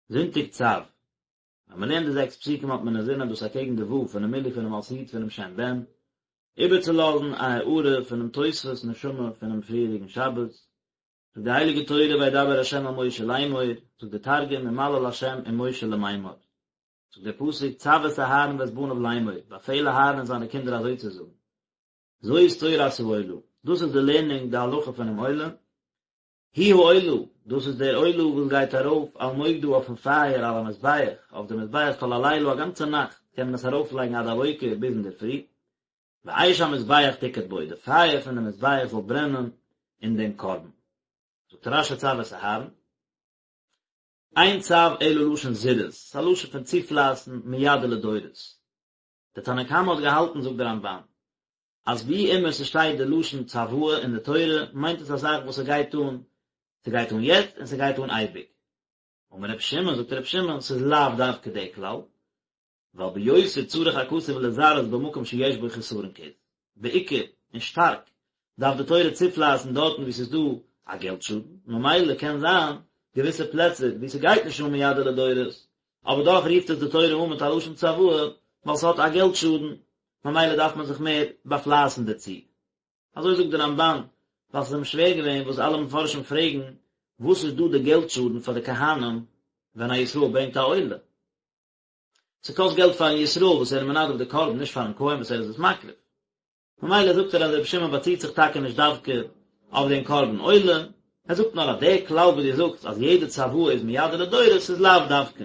זונטאג צו. ווען מען לערנט די זעקס פסוקים האט מען אינזין אז דאס אקעגן די ו' פונעם מילוי פונעם אות י' פונעם שם בן, איבערצולאזן א הארה פונעם תוספות נשמה פונעם פריערדיגן שבת, זאגט די הייליגע תורה וידבר ה' אל משה לאמור, זאגט די תרגום ומליל ה' עם משה למימר, זאגט דער פסוק צו את אהרן ואת בניו לאמור, באפעל אהרן און זיינע קינדער אזוי צו זאגן, זאת תורת העולה, דאס איז די לערנונג די הלכה פונעם עולה, היא העולה, דאס איז דער עולה וואס גייט ארויף על מוקדה אויפן פייער על המזבח, אויף די מזבח כל הלילה א גאנצע נאכט קען מען עס ארויפלייגן עד הבוקר ביז אינדערפרי, ואש המזבח תוקד בו, די פייער פון די מזבח זאל ברענען אין דעם קרבן. זאגט רש"י צו את אהרן, אין צו אלא לשון זירוז, ס'איז א לשון פון צופלייסן מיד ולדורות. דער תנא קמא האט געהאלטן זאגט דער רמב"ן, אז ווי אימער ס'שטייט די לשון צוואה אין די תורה מיינט עס א זאך וואס ס'גייט אן, ס'גייט אן יעצט און ס'גייט אן אייביג. אמר רבי שמעון, זאגט רבי שמעון, ס'איז לאו דווקא די כלל, ווייל ביותר צריך הכתוב לזרז במקום שיש בו חסרון כיס, בעיקר און שטארק דארף די תורה צופלייסן דארטן וואו ס'איז דא א געלט שאדן, ממילא קען זיין געוויסע פלעצער וואו ס'גייט נישט אן מיד ולדורות, אבער דאך רופט עס די תורה אן מיט א לשון צוואה ווייל ס'האט א געלט שאדן, ממילא דארף מען זיך מער באפלייסן דערצו. אזוי זאגט די רמב"ן, ווייל ס'איז אים שווער געווען וואס אלע מפרשים פרעגן, וואס איז דא די געלט שאדן פאר די כהנים ווען א ישראל ברענגט א עולה? ס'קאסט געלט פארן ישראל וואס ער איז מנדב די קרבן, נישט פארן כהן וואס ער איז עס מקריב. ממילא זאגט ער אז רבי שמעון באציט זיך טאקע נישט דווקא אויף דעם קרבן עולה, ער זאגט נאר אז דער כלל וואס דו זאגסט אז יעדע צוואה איז מיד ולדורות איז לאו דווקא.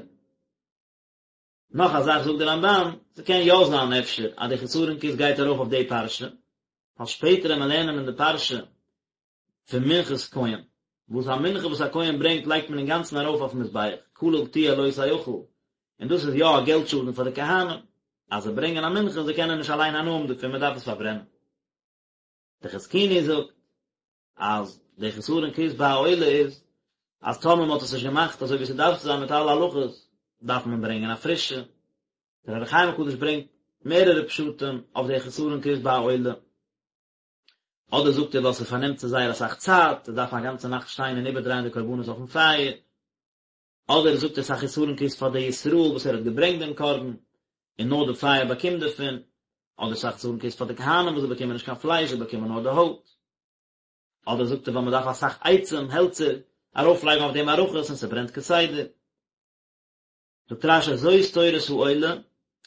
נאך א זאך זאגט דער רמב"ן, ס'קען יא זיין אפשר אז די חסרון כיס גייט ארויף אויף די פרשה, ווייל שפעטער ווען מיר לערנען אין די פרשה פון מנחת כהן, וואס א מנחה וואס א כהן ברענגט לייגט מען אינגאנצן ארויף אויפן מזבח, כליל תהיה לא תאכל, און דאס איז יא א געלט שאדן פאר די כהנים, אז זיי ברענגען א מנחה און זיי קענען נישט אליין הנאה האבן דערפון, מען דארף עס פארברענען. די חזקוני זאגט אז די חסרון כיס ביי א עולה איז אז טאמער מען האט עס נישט געמאכט אזוי ווי ס'דארף צו זיין מיט אלע הלכות, דארף מען ברענגען א פרישע. דער אור החיים הקדוש ברענגט מערערע פשטים אויף די חסרון כיס ביי א עולה. אדער זאגט ער ווייל ס'פארנעמט צו זייער אסאך צייט, זיי דארפן א גאנצע נאכט שטיין און איבערדרייען די קרבנות אויפן פייער. אדער זאגט ער ס'איז א חסרון כיס פאר די ישראל וואס ער האט געברענגט דעם קרבן, און נאר די פייער באקומט דערפון, אדער ס'איז א חסרון כיס פאר די כהנים וואס זיי באקומען נישט קיין פלייש זיי באקומען נאר די הויט. אדער זאגט ער ווייל מ'דארף אסאך עצים, העלצער, ארויפלייגן אויף די מערכות און ס'ברענט כסדר. זאגט רש"י זאת תורת העולה,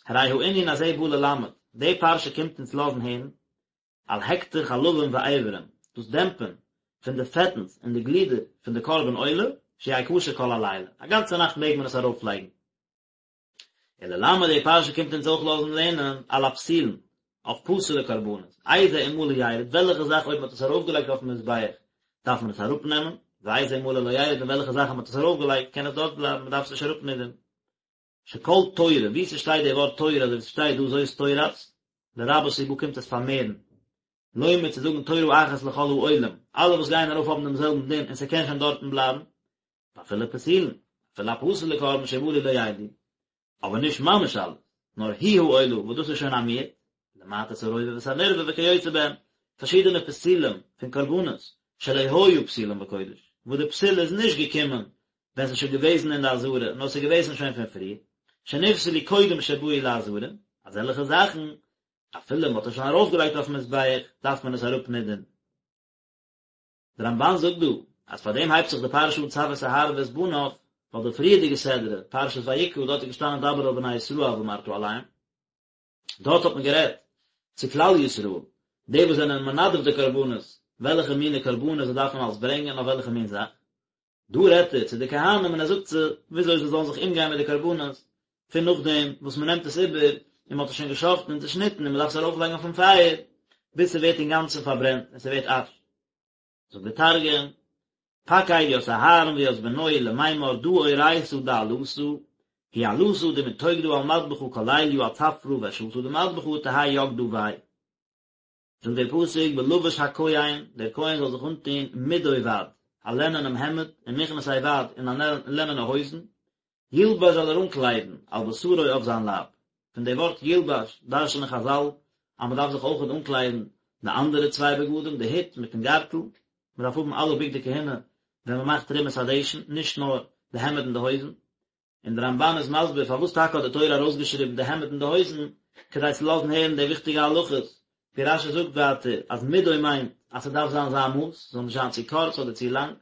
הרי הענין הזה בא ללמד, די פרשה קומט אונז לאזן הערן, על הקטר חלבים ואיברים, דאס דעמפען פון די פעטנס און די גלידער פון די קרבן עולה, שיהא כשר כל הלילה, א גאנצע נאכט מעג מען עס ארויפלייגן. וללמד די פרשה קומט אונז אויך לאזן לערנען על הפסולין, אויף פסול'ע קרבנות, איזה אם מלא ירד, וועלכע זאך אויב מען האט עס ארויפגעלייגט אויפן מזבח דארף מען עס אראפנעמען, ואיזה אם מלא לא ירד און וועלכע זאך אז מען האט עס ארויפגעלייגט קען עס דארט בלייבן, מען דארף עס נישט אראפנידערן. שכל תורה, וואו ס'שטייט די ווארט תורה אזוי ווי ס'שטייט דא זאת תורת, לרבות הוא בא קומט עס פארמערן, לומר צו זאגן תורה אחת לכל העולים, אלע וואס גייען ארויף האבן דעם זעלבן דין און ס'קען שוין דארטן בלייבן, ואפילו פסולין, אפילו א פסול'ע קרבן שמלו לא ירדו, אבער נישט ממש אלעס, נאר היא העולה וואס דאס איז שוין א מיעוט, למעט את הרובע ואת הנרבע וכיוצא בהם, פארשידענע פסולים פון קרבנות, שלא היה פסולם בקודש, וואס די פסול איז נישט געקומען ווען ס'איז שוין געוועזן אין די עזרה, נאר ס'איז געוועזן שוין פון פריער, שנפסלו קודם שבאו לעזרה, אזעלכע זאכן, אפילו מ'האט עס שוין ארויפגעלייגט אויפן מזבח, דארף מען עס אראפנידערן. דער רמב"ן זאגט דא, אז פאר דעם הייבט זיך די פרשה אן צו את אהרן ואת בניו, ווייל די פריערדיגע סדרה, פרשת ויקרא, דארט איז געשטאנען דבר אל בני ישראל ואמרת אליהם, דארט האט מען גערעדט צו כלל ישראל, די וואס זענען מנדב די קרבנות, וועלכע מיני קרבנות זיי דארפן אלס ברענגען אויף וועלכע מין זאך. דא רעדט ער צו די כהנים און ער זאגט זיי וויאזוי זיי זאלן זיך אומגיין מיט די קרבנות, פון נאכדעם וואס מען נעמט עס איבער און מען האט עס שוין געשחט'ן און צעשניטן און מען דארף עס ארויפלייגן אויפן פייער ביז ס'ווערט אינגאנצן פארברענט און ס'ווערט אש. זאגט דער תרגום, פקיד ית אהרן וית בנוי למימר דא אורייתא דעלתא, היא עלתא דמתוקדא על מדבחא כל ליליא עד צפרא ואשתא דמדבחא תהי יקדא ביה. זאגט דער פסוק ולבש הכהן, דער כהן זאל זיך אנטון מדו בד, א לענענעם העמד, ומכנסי בד, און א לענענע הויזן, ילבש זאל ער אנקליידן, על בשרו אויף זיין לייב. פון די ווארט ילבש דרש'נען חז"ל אז מען דארף זיך אויכעט אנקליידן די אנדערע צוויי בגדים, די הוט מיטן גארטל, מען דארף האבן אלע בגדי כהונה ווען מען מאכט תרומת הדשן, נישט נאר די העמד און די הויזן. און דער רמבן איז מסביר פארוואס טאקע האט די תורה ארויסגעשריבן די העמד און די הויזן, כדי צו לאזן הערן די וויכטיגע הלכות, ווי רשי זאגט ווייטער אז מדו מיינט אז ס'דארף זיין זיין מאס, ס'זאל נישט זיין צו קורץ אדער צו לאנג.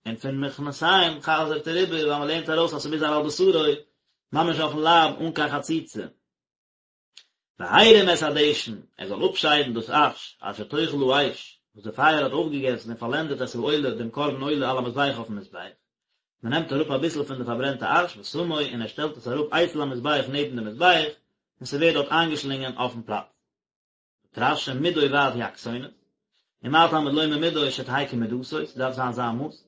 און פון מכנסיים חזר'ט ער איבער ווייל מ'לערנט ארויס אז ס'מוז זיין על בשרו, ממש אויפן לייב אן קיין חציצה. והרים את הדשן, ער זאל אפשיידן דאס אש, אשר תאכל האש, וואס די פייער האט אויפגעגעסן און פארלענדעט את העולה, דעם קרבן עולה על המזבח אויפן מזבח. מען נעמט אראפ אביסל פון די פארברענטע אש, ושמו, און ער שטעלט עס אראפ אצל המזבח נעבן דעם מזבח, און ס'ווערט דארט איינגעשלינגען אויפן פלאץ. זאגט רשי, מדו ועד היא הכתונת, ומה תלמוד לומר מדו שתהא כמדתו, ס'דארף זיין זיין מאס.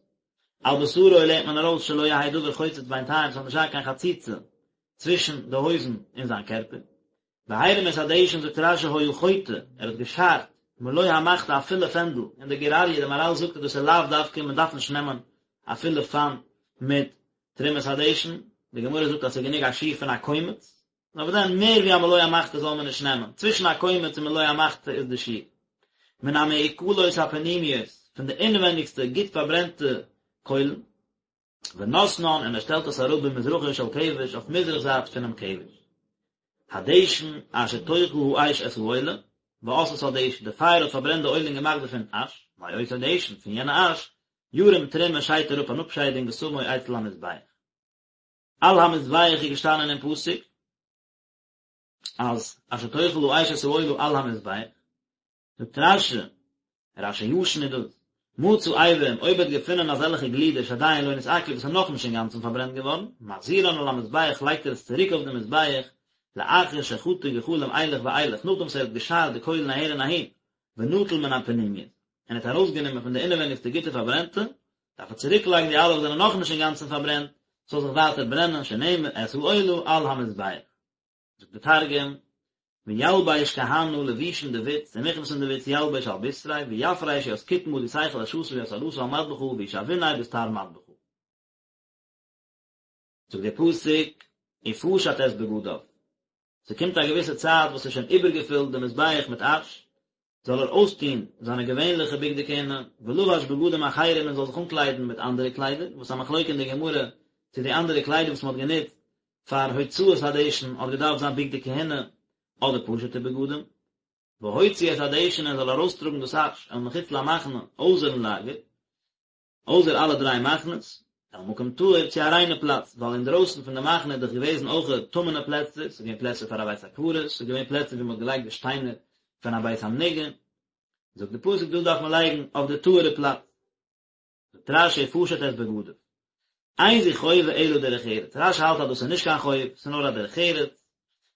על בשרו לערנט מען ארויס שלא יהא דבר חוצץ בינתיים, ס'זאל נישט זיין קיין חציצה צווישן די הויזן און זיין קערפער. והרים את הדשן זאגט רשי היה חוטא, ער האט געשארט, מלא המחתה א פולע פענדל, און דער גור אריה, דער מהרל זאגט אז דאס איז לאו דווקא, מען דארף נישט נעמען א פולע פאן מיט תרומת הדשן, די גמרא זאגט אז ס'איז גענוג א שיעור פון א קומץ, נאר וואס דען מער ווי א מלא המחתה זאל מען נישט נעמען, צווישן א קומץ און מלא המחתה איז די שיעור. מן המעוכלות הפנימיות, פון די אינווענדיגסטע גוט פארברענטע קוילן. ונתנן און ער שטעלט עס אראפ במזרחו של כבש אויף מזרח זייט פונעם כבש. הדשן אשר תאכל האש את העולה, ועשתה דשן, די פייער האט פארברענט די עולה און געמאכט דערפון אש, מאותו דשן, פון יענע אש, ירים תרומה שיידט ער אפ אן אפשיידונג ושמו אצל המזבח. על המזבח איז געשטאנען אין פסוק אז אשר תאכל האש את העולה על המזבח, זאגט רשי, רשי ישן איז דאס, מצא אברים, אויב ער האט געפונען אזעלכע גלידער שעדיין לא נתעכלו וואס איז נאכנישט אינגאנצן פארברענט געווארן, מחזירן על המזבח לייגט ער עס צוריק אויף די מזבח, לאחר שחטא גחלים אילך ואילך, נאכדעם וואס ער האט געשארט די קוילן אהער און אהין, ונטל מן הפנימיות, און ער האט ארויסגענומען פון די אינעווייניגסטע גוטע פארברענטע, דארף ער צוריקלייגן די אלע וואס זענען נאכנישט אינגאנצן פארברענט, ס'זאל זיך ווייטער ברענען, שנאמר, את העולה על המזבח. זאגט די תרגום, וילביש כהנא לבושין דבוץ, ומכנסין דבוץ ילביש על בתריה, ויפריש ית קטמא די תיכול עשתא וית עלתא על מדבחא, וישעביניה בסטר מדבחא. זאגט דער פסוק, ופשט את בגדיו. ס'קומט א געוויסע צייט וואס ס'איז שוין איבערגעפילט די מזבח מיט אש, זאל ער אויסטון זיינע געווענליכע בגדי כהונה, ולבש בגדים אחרים און זאל זיך אנקליידן מיט אנדערע קליידער, וואס א מחלוקה אין די גמרא צו די אנדערע קליידער וואס מ'האט גענוצט פאר הוצאת הדשן האט געדארפט זיין בגדי כהונה אדער פשוט'ע בגדים. והוציא את הדשן און זאל ארויסטראגן דאס אש אל מחוץ למחנה אויסערן לאגער, אויסער אלע דריי מחנות, אל מקום טהור צו א ריינע פלאץ, ווייל אינדרויסן פון די מחנה איז דאך געוועזן אויך טמא'נע פלעצער, ס'איז געווען פלעצער פאר א בית הקברות, ס'איז געווען פלעצער ווי מ'האט געלייגט די שטיינער פון א בית המנוגע, זאגט די פסוק דאס דארף מען לייגן אויף די טהור'ע פלאץ. זאגט רש"י ופשט את בגדיו. אין זו חובה אלא דרך ארץ, רש"י האלט אז דאס איז נישט קיין חוב, ס'איז נאר א דרך ארץ,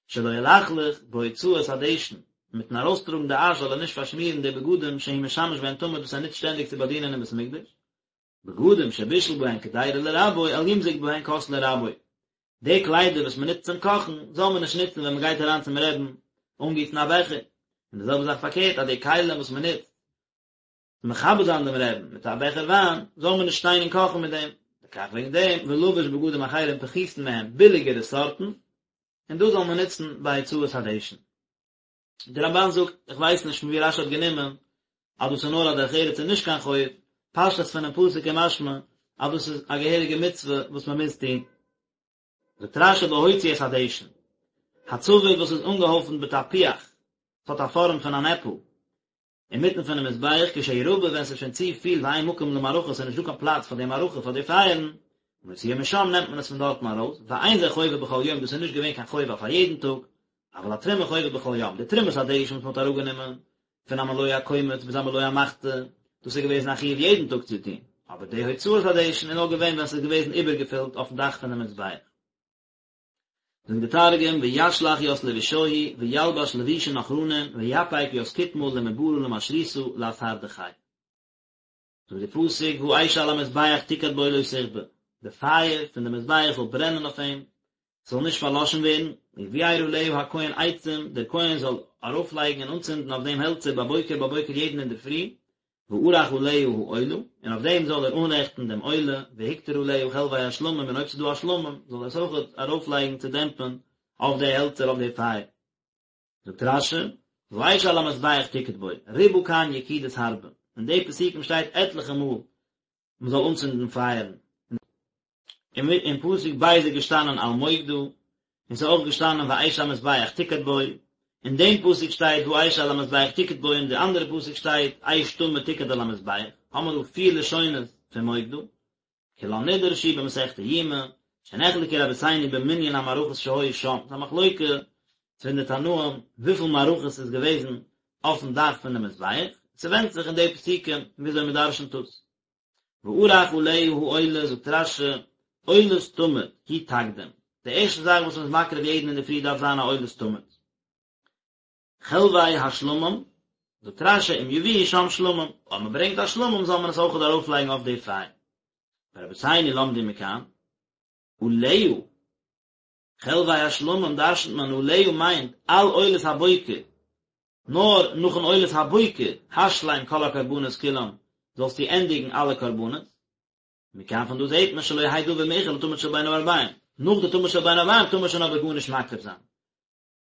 שלא ילכלך בהוצאת הדשן, מיטן ארויסטראגן די אש זאל ער נישט פארשמירן די בגדים שהוא משמש בהן תמיד וואס ער נוצט שטענדיג צו באדינען אין בית המקדש, בגדים שבישל בהן קדירה לרבו אל ימזוג בהן כוס לרבו, די קליידער וואס מען נוצט צום קאכן זאל מען נישט נוצן ווען מען גייט אריין צום רעבן אנגיסן א בעכער, און די זעלבע זאך פארקערט אז די כלים וואס מען נוצט מכבד זיין דעם רעבן מיט א בעכער וויין, זאל מען נישט שטיין און קאכן מיט דעם, לכך וועגן דעם, ולבש בגדים אחרים פחותין מהם, ביליגערע סארטן, און דאס זאל מען נוצן ביי הוצאת הדשן. דער רמב"ן זאגט, איך ווייס נישט פון ווי רש"י האט גענומען אז דאס איז נאר א דרך ארץ און נישט קיין חוב, פשטות פונעם פסוק איז משמע אז דאס איז א געהעריגע מצוה וואס מען מוז טון. זאגט רש"י והוציא את הדשן, הצבור וואס איז אנגעהויפנט בתפוח, ס'האט א פארעם פון אן עפל, אינמיטן פונעם מזבח כשהוא רבה ווען ס'איז שוין צו פיל ואין מקום למערכה ס'איז נישט דא קיין פלאץ פאר די מערכה פאר די פייערן, מוציאו משם נעמט מען עס פון דארטן ארויס, ואין זה חובה בכל יום דאס איז נישט געווען קיין חובה פאר יעדן טאג, אבל התרומה חובה בכל יום, די תרומת הדשן וואס מ'האט אראפגענומען פון א מלא הקומץ ביז א מלא המחתה, דאס איז געוועזן א חיוב יעדן טאג צו טון, אבער די הוצאת הדשן איז נאר געווען ווען ס'איז געוועזן איבערגעפילט אויפן דאך פונעם מזבח. זאגט די תרגום, וישלח ית לבושוהי, וילבש לבושין אחרנין, ויפיק ית קטמא למברא למשריתא לאתר דכי. זאגט די פסוק, והאש על המזבח תוקד בו לא תכבה, די פייער פון די מזבח זאל ברענען אויף אים, ס'זאל נישט פארלאשן ווערן, ובער עליה הכהן עצים, דער כהן זאל ארויפלייגן און אנצינדן אויף דעם העלצער בבוקר בבוקר יעדן אינדערפרי, וערך עליה העולה, און אויף דעם זאל ער אנרעכטן דעם עולה, והקטיר עליה חלבי השלמים, און אויב ס'איז דא א שלמים, זאל ער עס אויך ארויפלייגן צו דעמפן אויף די העלצער אויף די פייער. זאגט רש"י, והאש על המזבח תוקד בו, ריבה כאן יקידות הרבה, אין די פסוקים שטייט עטליכע מאל מען זאל אנצינדן פייערן. אין פסוק ב' איז געשטאנען על מוקדה, און ס'איז אויך געשטאנען ואש המזבח תוקד בו, אין דעם פסוק שטייט והאש על המזבח תוקד בו, אין די אנדערע פסוק שטייט אש תמיד תוקד על המזבח, האמער דא פיר לשונות פון מוקדה, כולן נדרשו במסכת יומא, שנחלקו רבותינו במנין המערכות שהיו שם, ס'איז א מחלוקה פון די תנאים וויפיל מערכות ס'איז געוועזן אויפן דאך פון די מזבח, ס'ווענדט זיך אין די פסוקים וויאזוי מ'דרשנ'ט עס. וערך עליה העולה זאגט רש"י, עולת תמיד, היא תקדים, די ערשטע זאך וואס מ'איז מקריב יעדן אינדערפרי דארף זיין א עולת תמיד. חלבי השלמים, זאגט רש"י אם יביאו שם שלמים, אויב מ'ברענגט א שלמים זאל מען עס אויכעט ארויפלייגן אויף די פייער. ורבותינו למדו מכאן, עליה, חלבי השלמים דרשנ'ט מען עליה מיינט על עולת הבוקר, נאר נאכן עולת הבוקר, השלם כל הקרבנות כולם, זאלסטו ענדיגן אלע קרבנות. מכאן פון דא זעט מען שלא יהא דבר מאוחר לתמיד של בין הערביים, נאך די תמיד של בין הערביים טאר מען שוין אבער גארנישט מקריב זיין.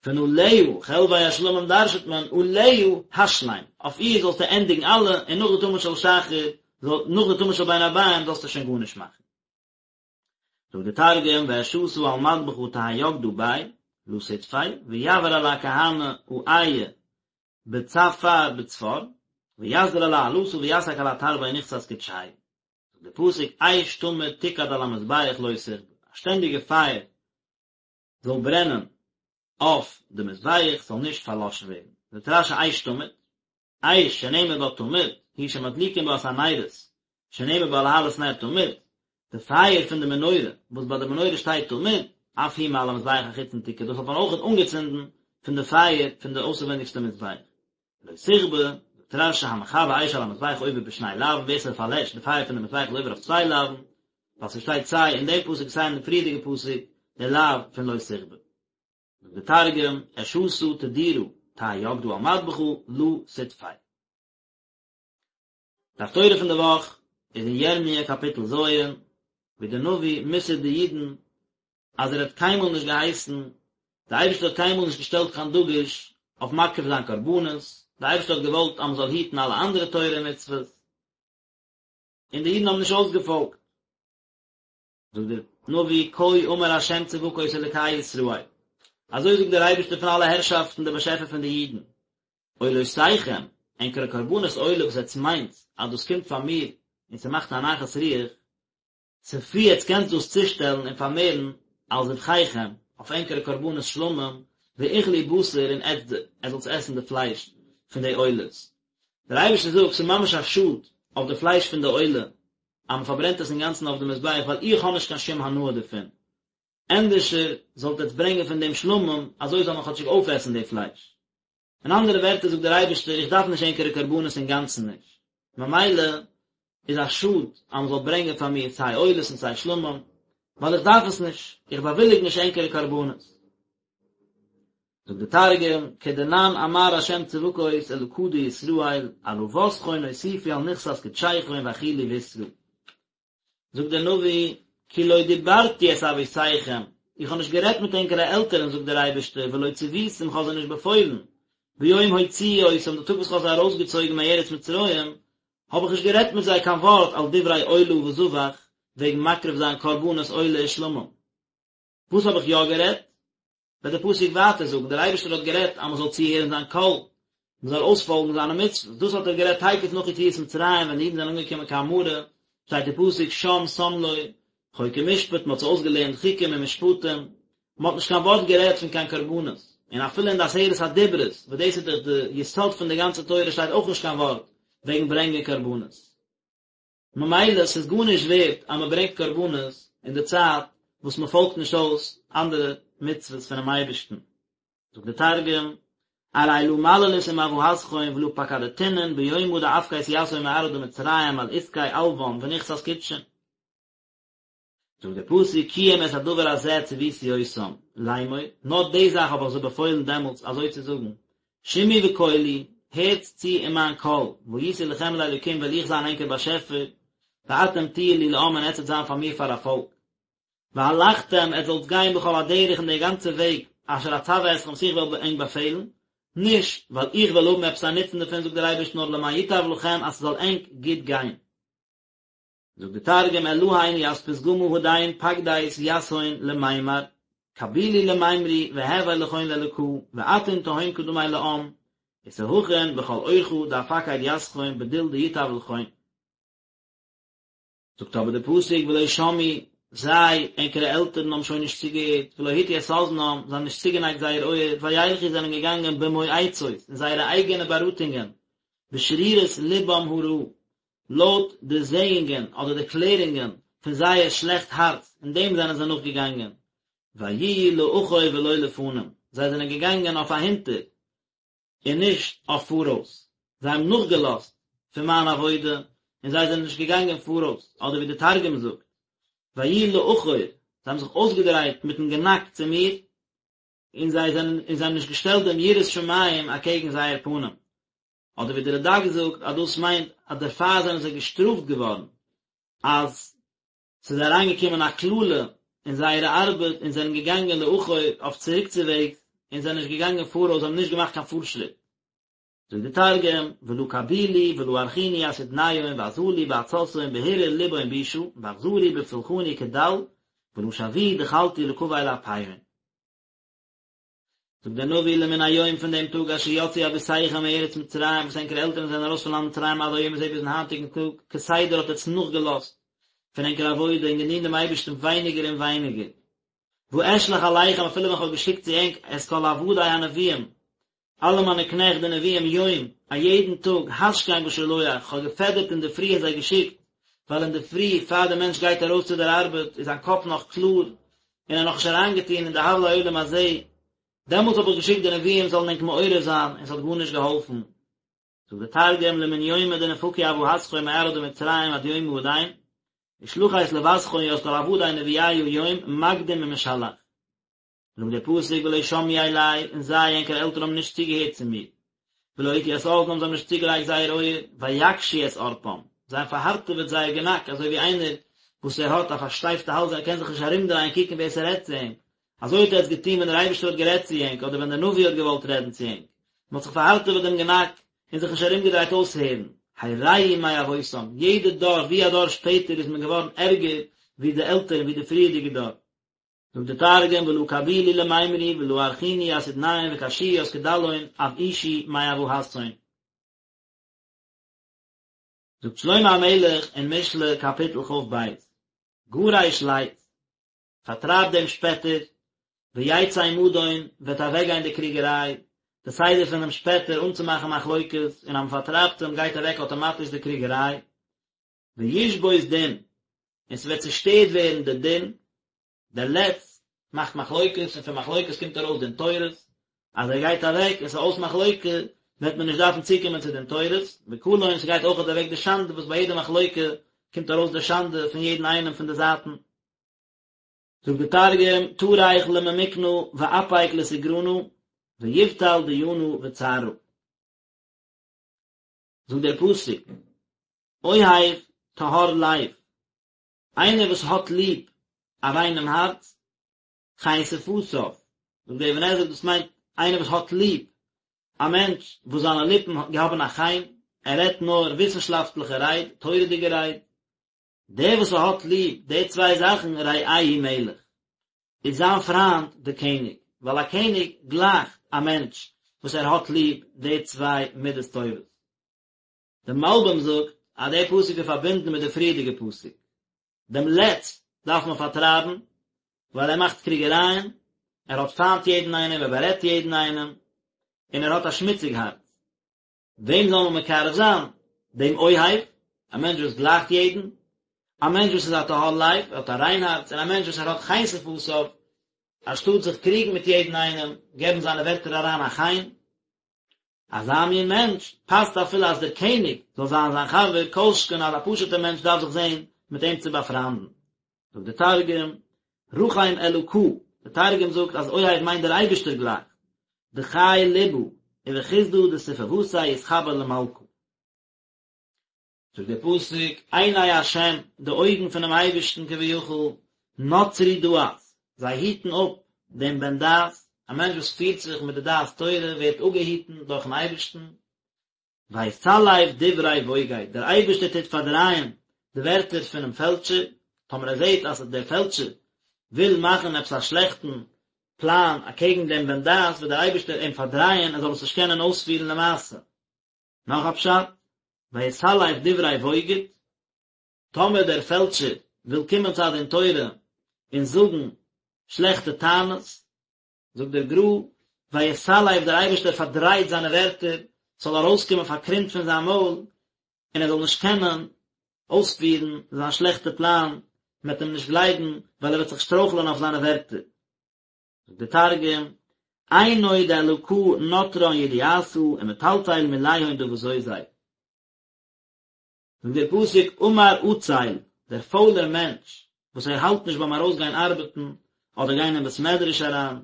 פון עליה, חלבי השלמים דרש'ט מען עליה השלם, אויף איר זאלסטו ענדיגן אלע, און נאך די תמיד של שחר, נאך די תמיד של בין הערביים זאלסטו שוין גארנישט מאכן. זאגט די תרגום ואשתא על מדבחא תהי יקדא ביה לא תטפי ויעבר עלה כהנא אעיא בצפר בצפר ויסדיר עלה עלתא ויסק עלה תרבי נכסת קודשיא זאגט די פסוק אש תמיד תוקד על המזבח לא תכבה א שטענדיגע פייער זאל ברענען אויף די מזבח ס'זאל נישט פארלאשן ווערן זאגט רש"י אש תמיד אש שנאמר בה תמיד, היא שמדליקין בה את הנרות, שנאמר בה להעלות נר תמיד, די פייער פון די מנורה, וואס ביי די מנורה שטייט תמיד, אף היא מעל המזבח החיצון תוקד, דאס האט מען אויכעט אנגעצינדן פון די פייער פון די אויסערווענדיגסטע מזבח. לא תכבה, זאגט רש"י המכבה אש על המזבח עובר בשני לאווין, ווער ס'פארלעשט די פייער פון די מזבח איז עובר אויף צוויי לאווין, ווייל ס'שטייט סיי אין דעם פסוק סיי אין די פריערדיגע פסוק די לאו פון לא תכבה. זאגט די תרגום, אשתא תדירא תהי יקדא על מדבחא לא תטפי. די הפטורה פון די וואך איז אין ירמיה קאפיטל ז', ווי דער נביא מוסר'ט די אידן אז ער האט קיינמאל נישט געהייסן, די אייבערשטער האט קיינמאל נישט געשטעלט קיין דגוש אויף מקריב זיין קרבנות, די אייבערשטער האט געוואלט אז מען זאל היטן אלע אנדערע תורה און מצוות, און די אידן האבן נישט אויסגעפאלגט. זאגט דער נביא כה אמר ה' צבקות אלקי ישראל, אזוי זאגט דער אייבערשטער פון אלע הערשאפטן דער באשעפער פון די אידן, עולותיכם, ענקערע קרבנות עולה וואס עטס מיינט אז דאס קומט פאר מיר און ס'מאכט א נחת רוח, ספרו עטס קענטס דאס צושטעלן און פארמערן על זבחיכם, אויף ענקערע קרבנות שלמים, ואכלו בשר און עטס זאלטס עסן די פלייש פון די עולות. דער אייבערשטער זאגט, ס'איז ממש א שאד אויף די פלייש פון די עולה, אז מען פארברענט עס אינגאנצן אויף די מזבח ווייל איך האב נישט קיין שום הנאה דערפון, ענדערשער זאלט עטס ברענגען פון דעם שלמים, אזוי זאל מען כאטשיג אויפעסן די פלייש. אין אנדערע ווערטער זאגט דער אייבערשטער איך דארף נישט ענקערע קרבנות אינגאנצן נישט, ממילא איז א שאד אז מען זאל ברענגען פאר מיר סיי עולות און סיי שלמים, ווייל איך דארף עס נישט, איך באוויליג נישט ענקערע קרבנות. זאגט די תרגום, כדנן אמר ה' צבקות אלקא דישראל, עלוותכון אוסיפו על נכסת קדשיכון ואכילו בשרא. זאגט דער נביא, כי לא דיברתי את אבותיכם, איך האב נישט גערעדט מיט ענקערע עלטערן, זאגט דער אייבערשטער, ולא צויתים, איך האב זיי נישט באפוילן, ביום הוציאי אותם, די טאג וואס איך האב זיי ארויסגעצויגן מארץ מצרים, האב איך נישט גערעדט מיט זיי קיין ווארט על דברי עולה וזבח, וועגן מקריב זיין קרבנות עולה ושלמים. וואס האב איך יא גערעדט? וועט דער פסוק ווייטער זאגן, דער אייבערשטער האט גערעדט אז מען זאל צוהערן זיין קול, מען זאל אויספאלגן זיינע מצוות, דאס האט ער גערעדט תיכף נאך יציאת מצרים ווען די אידן זענען אנגעקומען קיין מרה, שטייט אין פסוק שם שם לו חוק ומשפט, מען האט זיי אויסגעלערנט חוקים און משפטים, מען האט נישט קיין ווארט גערעדט פון קיין קרבנות, און אפילו אין די עשרת הדיברות, וואס דאס איז דאך די יסוד פון די גאנצע תורה שטייט אויך נישט קיין ווארט וועגן ברענגען קרבנות. ממילא ס'איז גארנישט ווערט אז מ'ברענגט קרבנות אין די צייט וואס מ'פאלגט נישט אויס אנדערע מצוות פונעם אייבערשטן. זאגט דער תרגום, ארי לא מללית עם אבהתכון ולא פקדתינון ביומא דאפקית יתהון מארעא דמצרים על עסקי עלוון ונכסת קודשין. זאגט דער פסוק כי אם את הדבר הזה צויתי אותם לאמור, נאר די זאך האב איך זיי באפוילן דעמאלטס אזוי צו זאגן, שמעו בקולי, הערטס צו אין מיין קול, והייתי לכם לאלוקים וועל איך זיין ענקער באשעפער, ואתם תהיו לי לעם און עטס וועט זיין פאר מיר פאר א פאלק. והלכתם, עטס זאלטס גיין בכל הדרך אין דער גאנצער וועג, אשר אצוה אתכם וואס איך וועל ענק באפעלן, נישט ווייל איך וועל האבן עפעס א נוצן דערפון זאגט דער אייבערשטער נאר למען ייטב לכם אז ס'זאל ענק גוט גיין. זאגט די תרגום אלהין ית פתגמא הדין פקדית יתהון למימר, קבילו למימרו והוי לכון לאלקא, ואתון תהון קדמי לעם, ותהכון בכל אורחא דאפקיד יתכון בדיל דיטב לכון. זאגט אבער די פסוק ולא שמעו, זיי, ענקערע עלטערן האבן שוין נישט צוגעהערט, ולא הטו את אזנם, זיי האבן נישט צוגענייגט זייער אויער, וילכו זענען געגאנגען במועצות, אין זייערע אייגענע באראטונגען, בשרירות לבם הרעה, לויט די זעאונגען אדער די קלערונגען פון זייער שלעכט הארץ, אין דעם זענען זיי נאכגעגאנגען, ויהיו לאחור ולא לפנים, זיי זענען געגאנגען אויף אהינטער, און נישט אויף פאראויס, זיי האבן נאכגעלאזט פון מיין עבודה, און זיי זענען נישט געגאנגען פאראויס, אדער ווי די תרגום זאגט, ויהיו לאחור, זיי האבן זיך אויסגעדרייט מיטן גענאק צו מיר, און זיי זענען און זיי האבן נישט געשטעלט דעם יראת שמים אקעגן זייער פנים. אדער ווי די רד"ק זאגט אז דאס מיינט אז דערפאר זענען זיי געשטראפט געווארן, אז ס'איז אריינגעקומען א קללה אין זייערע ארבעט און זענען געגאנגען לאחור אויף צוריקצוועגס און זענען נישט געגאנגען פאראויס, זיי האבן נישט געמאכט קיין פארשריט. זאגט די תרגום, ולא קבילו ולא ארכינו ית אודניהון ואזלו בעצתהון בהרהור לבהון בישא, ואחזרו בפולחני כדל, ולא שויאו דחלתו לקבל אפיהון. זאגט דער נביא למן היום פון דעם טאג אשר יצאו אבותיכם מארץ מצרים וואס ענקערע עלטערן זענען ארויס פון לאנד מצרים עד היום הזה ביזן היינטיגן טאג, כסדר האט עטץ נאכגעלאזט פון ענקער עבודה און געדינט דעם אייבערשטן ווייניגער און ווייניגער. ואשלח אליכם אפילו ווען כ'האב געשיקט צו ענק את כל עבדי הנביאים, אלע מיינע קנעכט די נביאים יום, א יעדן טאג, השכם ושלח, כ'האב געפעדערט אינדערפרי און זיי געשיקט, ווייל אינדערפרי פאר דער מענטש גייט ארויס צו דער ארבעט איז זיין קאפ נאך קלאר, און ער נאכנישט אריינגעטון אין די הבלי עולם הזה, דעמאלטס האב איך געשיקט די נביאים זאלן ענק מעורר זיין, און ס'האט גארנישט געהאלפן. זאגט דער תרגום, למן יומא דנפקו אבהתכון מארעא דמצרים עד יומא הדין, ושלחית לותכון ית כל עבדי נביאיא יום מקדים ומשלח. זאגט דער פסוק ולא שמעו אלי, און זיי, ענקערע עלטערן האבן נישט צוגעהערט צו מיר, ולא הטו את אזנם, זיי האבן נישט צוגעלייגט זייער אויער, ויקשו את ערפם, זיי האבן פארהארטעוועט זייער גענאק, אזוי ווי איינער וואס ער האט א פארשטייפטע האלז ער קען זיך נישט ארומדרייען קוקן ווער ס'רעדט צו אים, אזוי האט עטץ געטון ווען דער אייבערשטער האט גערעדט צו ענק, אדער ווען דער נביא האט געוואלט רעדן צו ענק, מען האט זיך פארהארטעוועט דעם גענאק, און זיך נישט ארומגעדרייט אויסהערן, הרעו מאבותם, יעדע דור ווי א דור שפעטער איז מען געווארן ערגער ווי די עלטערן ווי די פריערדיגע דור. זאגט די תרגום ולא קבילו למימרו ולא ארכינו ית אודניהון וקשיאו ית קדלהון אבאישו מאבהתהון. זאגט שלמה המלך אין משלי קאפיטל כ"ב, גרש לץ, פארטרייב דעם שפעטער, ויצא מדון, וועט אוועקגיין די קריגעריי, די סדר פונעם שפעטער אנצומאכן מחלוקת, און אז מען פארטרייבט אים גייט אוועק אטאמאטיש די קריגעריי, וישבות דין, און ס'וועט צושטערט ווערן די דין, דער לץ מאכט מחלוקת און פון מחלוקת קומט ארויס דין תורות, אז ער גייט אוועק און ס'איז אויס מחלוקה וועט מען נישט דארפן צוקומען צו דין תורות, וקלון ס'גייט אויכעט אוועק די שאנדע וואס ביי יעדע מחלוקה קומט ארויס די שאנדע פון יעדן איינעם פון די זייטן. זאגט די תרגום, טריך לממיקנא ואפיק לתגרנא, ויבטל דיינא וצערא. זאגט דער פסוק, אוהב טהור לב, איינער וואס האט ליב א ריינעם הארץ, חן שפתיו, זאגט דער אבן עזרא דאס מיינט איינער וואס האט ליב א מענטש וואס זיינע ליפן האבן א חן, ער רעדט נאר וויסנשאפטליכע רייד, תורה'דיגע רייד, דער וואס האט ליב די צוויי זאכן רעהו מלך, איז זיין פריינד דער קעניג, ווייל א קעניג גלייכט א מענטש וואס ער האט ליב די צוויי מידות טובות. דער מלבים זאגט אז דער פסוק איז פארבינדן מיט די פריערדיגע פסוק. דעם לץ דארף מען פארטרייבן, ווייל ער מאכט קריגערייען, ער האט פיינט יעדן איינעם, ער בארעדט יעדן איינעם, און ער האט א שמוציג הארץ. וועם זאל מען מקרב זיין? דעם אוהב, א מענטש וואס גלייכט יעדן, א מענטש וואס איז א טהור לב, ער האט א ריין הארץ, און א מענטש וואס ער האט חן שפתיו, אנשטאט זיך קריגן מיט יעדן איינעם, געבן זיינע ווערטער אריין א חן. אזא מין מענטש פאסט אפילו אז דער קעניג זאל זיין זיין חבר, כל שכן אז א פשוט'ער מענטש דארף זיך זען מיט אים צו באפריינדן. זאגט דער תרגום, רחים אלקא, דער תרגום זאגט אז אוהב מיינט דער אייבערשטער גלייכט, דחי לבא, ובחסדא דשפוותיה יתחבר למלכא. זאגט דער פסוק, עיני השם, די אויגן פונעם אייבערשטן כביכול, נוצרי דעת, זיי היטן אפ דעם בן דעת, א מענטש וואס פירט זיך מיט די דעת תורה ווערט אפגעהיטן דורכן אייבערשטן, ויסלף דברי בוגד, דער אייבערשטער טוט פארדרייען. די ווערטער פונעם פעלטשער, טאמער ער זעט אז דער פעלטשער וויל מאכן עפעס א שלעכטן פלאן אקעגן דעם בן דעת וועט דער אייבערשטער אים פארדרייען ער זאל עס נישט קענען אויספירן למעשה. נאך א פשט, ויסלף דברי בוגד, טאמער דער פעלטשער וויל קומען צו א דין תורה און זאגן שלעכטע טענות, זאגט דער גר"א, ויסלף דער אייבערשטער פארדרייט זיינע ווערטער, ס'זאל ארויסקומען פארקרומט פון זיין מויל, און ער זאל נישט קענען אויספירן זיין שלעכטע פלאן, מען וועט אים נישט גלייבן, ווייל ער וועט זיך שטרויכלען אויף זיינע ווערטער. זאגט דער תרגום, עינוי דאלקא נטרן ידיעתא ומטלטל מיליהון דבזוזי. זאגט דער פסוק אמר עצל, דער פוילער מענטש וואס ער האלט נישט ביים ארויסגיין ארבעטן אדער גיין אין בית מדרש אריין,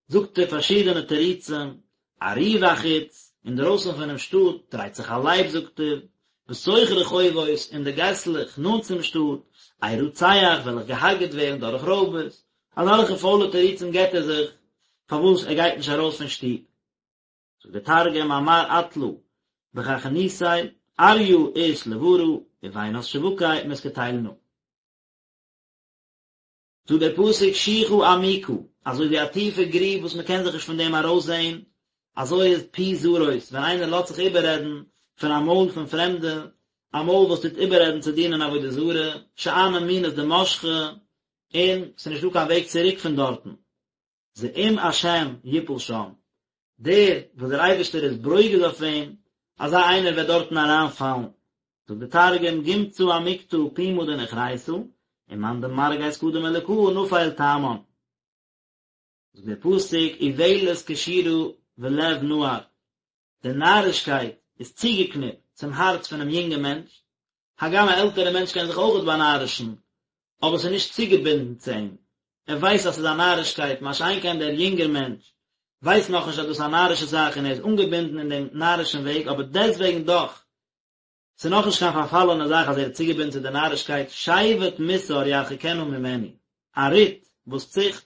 זאגט ער פארשידענע תירוצים, ארי בחוץ, אינדרויסן פונעם שטאט דרייט זיך א לייב זאגט ער, בתוך רחובות, אין די געסלעך נאנט צום שטאט, ארצח וועל איך געהארגעט ווערן דורך רויבערס, אזעלכע פוילע תירוצים געבט ער זיך פארוואס ער גייט נישט ארויס פון שטוב. זאגט דער תרגום אמר עטלא בחכינתיה אריא אית לברא ובינת שבקי מתקטלנא. זאגט דער פסוק שוחה עמוקה, אזוי ווי א טיפע גריב וואס מען קען זיך נישט פון דעם ארויסזען, אזוי איז פי זרות, ווען איינער לאזט זיך איבעררעדן פון א מויל פון פרעמדע, א מויל וואס טוט איבעררעדן צו דינען עבודה זרה, שאני מינות דמשכא, און ס'איז נישטא קיין וועג צוריק פון דארטן. זעום השם יפול שם, דער וואס דער אייבערשטער איז ברוגז אויף אים, אזא איינער וועט דארטן אריינפאלן. זאגט דער תרגום, גומצא עמיקתא פומא דנוכריתא, ומאן דמרגז קדם אלקא נפיל תמן. זאגט דער פסוק, אולת קשורה בלב נער, די נארישקייט איז צוגעקניפט צום הארץ פונעם יונגן מענטש, הגם א עלטערע מענטש קען זיך אויכעט באנארישן, אבער ס'איז נישט צוגעבינדן צו אים, ער ווייסט אז ס'איז א נארישקייט, מה שאין כן דער יונגער מענטש ווייסט נאכנישט אז דאס איז א נארישע זאך און ער איז אנגעבינדן אין דעם נארישן וועג, אבער דעסטוועגן דאך, ס'איז נאכנישט קיין פארפאלענע זאך אז ער איז צוגעבינדן צו די נארישקייט, שבט מוסר ירחיקנה ממנו, א רוט וואס ציכט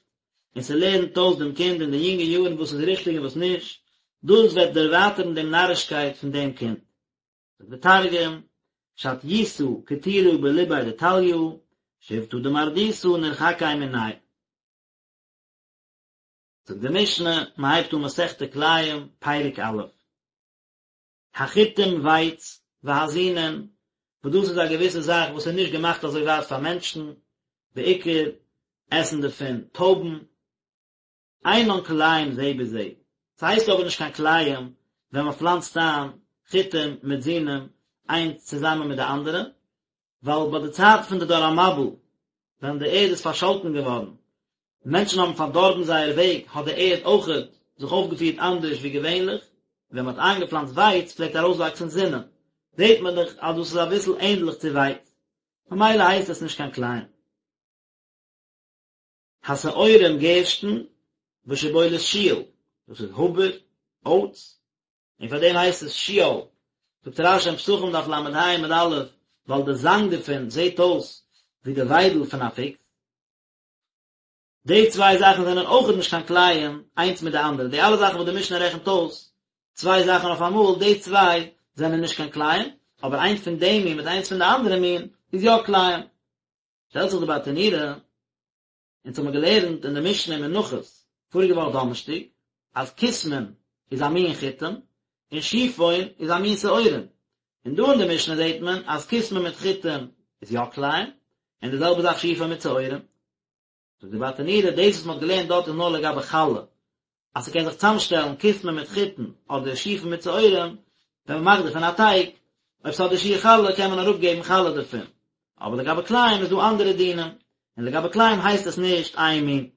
און ס'לערנט אויס דעם קינד אין די יונגע יארן וואס איז ריכטיג און וואס נישט, דאס וועט דערווייטערן דעם נארישקייט פון דעם קינד. זאגט דער תרגום, שטיותא קטירא בליביה דטליא, שבטא דמרדותא נרחקי מניה. זאגט די משנה, מען הייבט אן מסכת כלאים, פרק א'. החיטים ווייץ, והזונין, וואס דאס איז א געוויסע זאך וואס איז נישט געמאכט אזוי ווייט פאר מענטשן, בעיקר עסן דערפון טויבן, אינן כלאים זה בזה, ס'הייסט אבער נישט קיין כלאים ווען מ'פלאנצט איין חיטים מיט זינים איינס צוזאמען מיט די אנדערע, ווייל ביי די צייט פון די דור המבול ווען די ערד איז פארשאלטן געווארן, מענטשן האבן פארדארבן זייער וועג, האט די ערד אויכעט זיך אויפגעפירט אנדערש ווי געווענליך, ווען מ'האט איינגעפלאנצט ווייץ פלעגט ארויסוואקסן זינים, זעט מען דאך אז דאס איז אביסל ענדליך צו ווייץ, ממילא הייסט עס נישט קיין כלאים. השעורים גערשטן, ושבולת שועל, דאס איז האבער, אויטס, און פאר דעם הייסט עס שועל, זאגט רש"י אין פסחים דף ל"ה עמוד א', ווייל די זאנג דערפון זעט אויס ווי די וויידל פון א פוקס. די צוויי זאכן זענען אויכעט נישט קיין כלאים איינס מיט די אנדערע, די אלע זאכן וואס די משנה רעכנט אויס צוויי זאכן אויף אמאל, די צוויי זענען נישט קיין כלאים, אבער איינס פון די מין מיט איינס פון די אנדערע מין איז יא כלאים. שטעלט זיך די ברטנורא, אונז האמיר געלערנט אין די משנה אין מנחות פאריגע וואך דאנערשטאג, אז כוסמין איז א מין חיטים, און שיפון איז א מין שעורים, און דא אין די משנה זעט מען אז כוסמין מיט חיטים איז יא כלאים, און די זעלבע זאך שיפון מיט שעורים. זאגט די ברטנורא, דאס וואס מ'האט געלערנט דארט איז נאר לגבי חלה, אז ס'קען זיך צאמשטעלן כוסמין מיט חיטין אדער שיפון מיט שעורים, ווען מ'מאכט דערפון א טייג, אויב ס'האט די שיעור חלה קען מען אראפגעבן חלה דערפון, אבער לגבי כלאים איז דא אנדערע דינים, און לגבי כלאים הייסט עס נישט איין מין.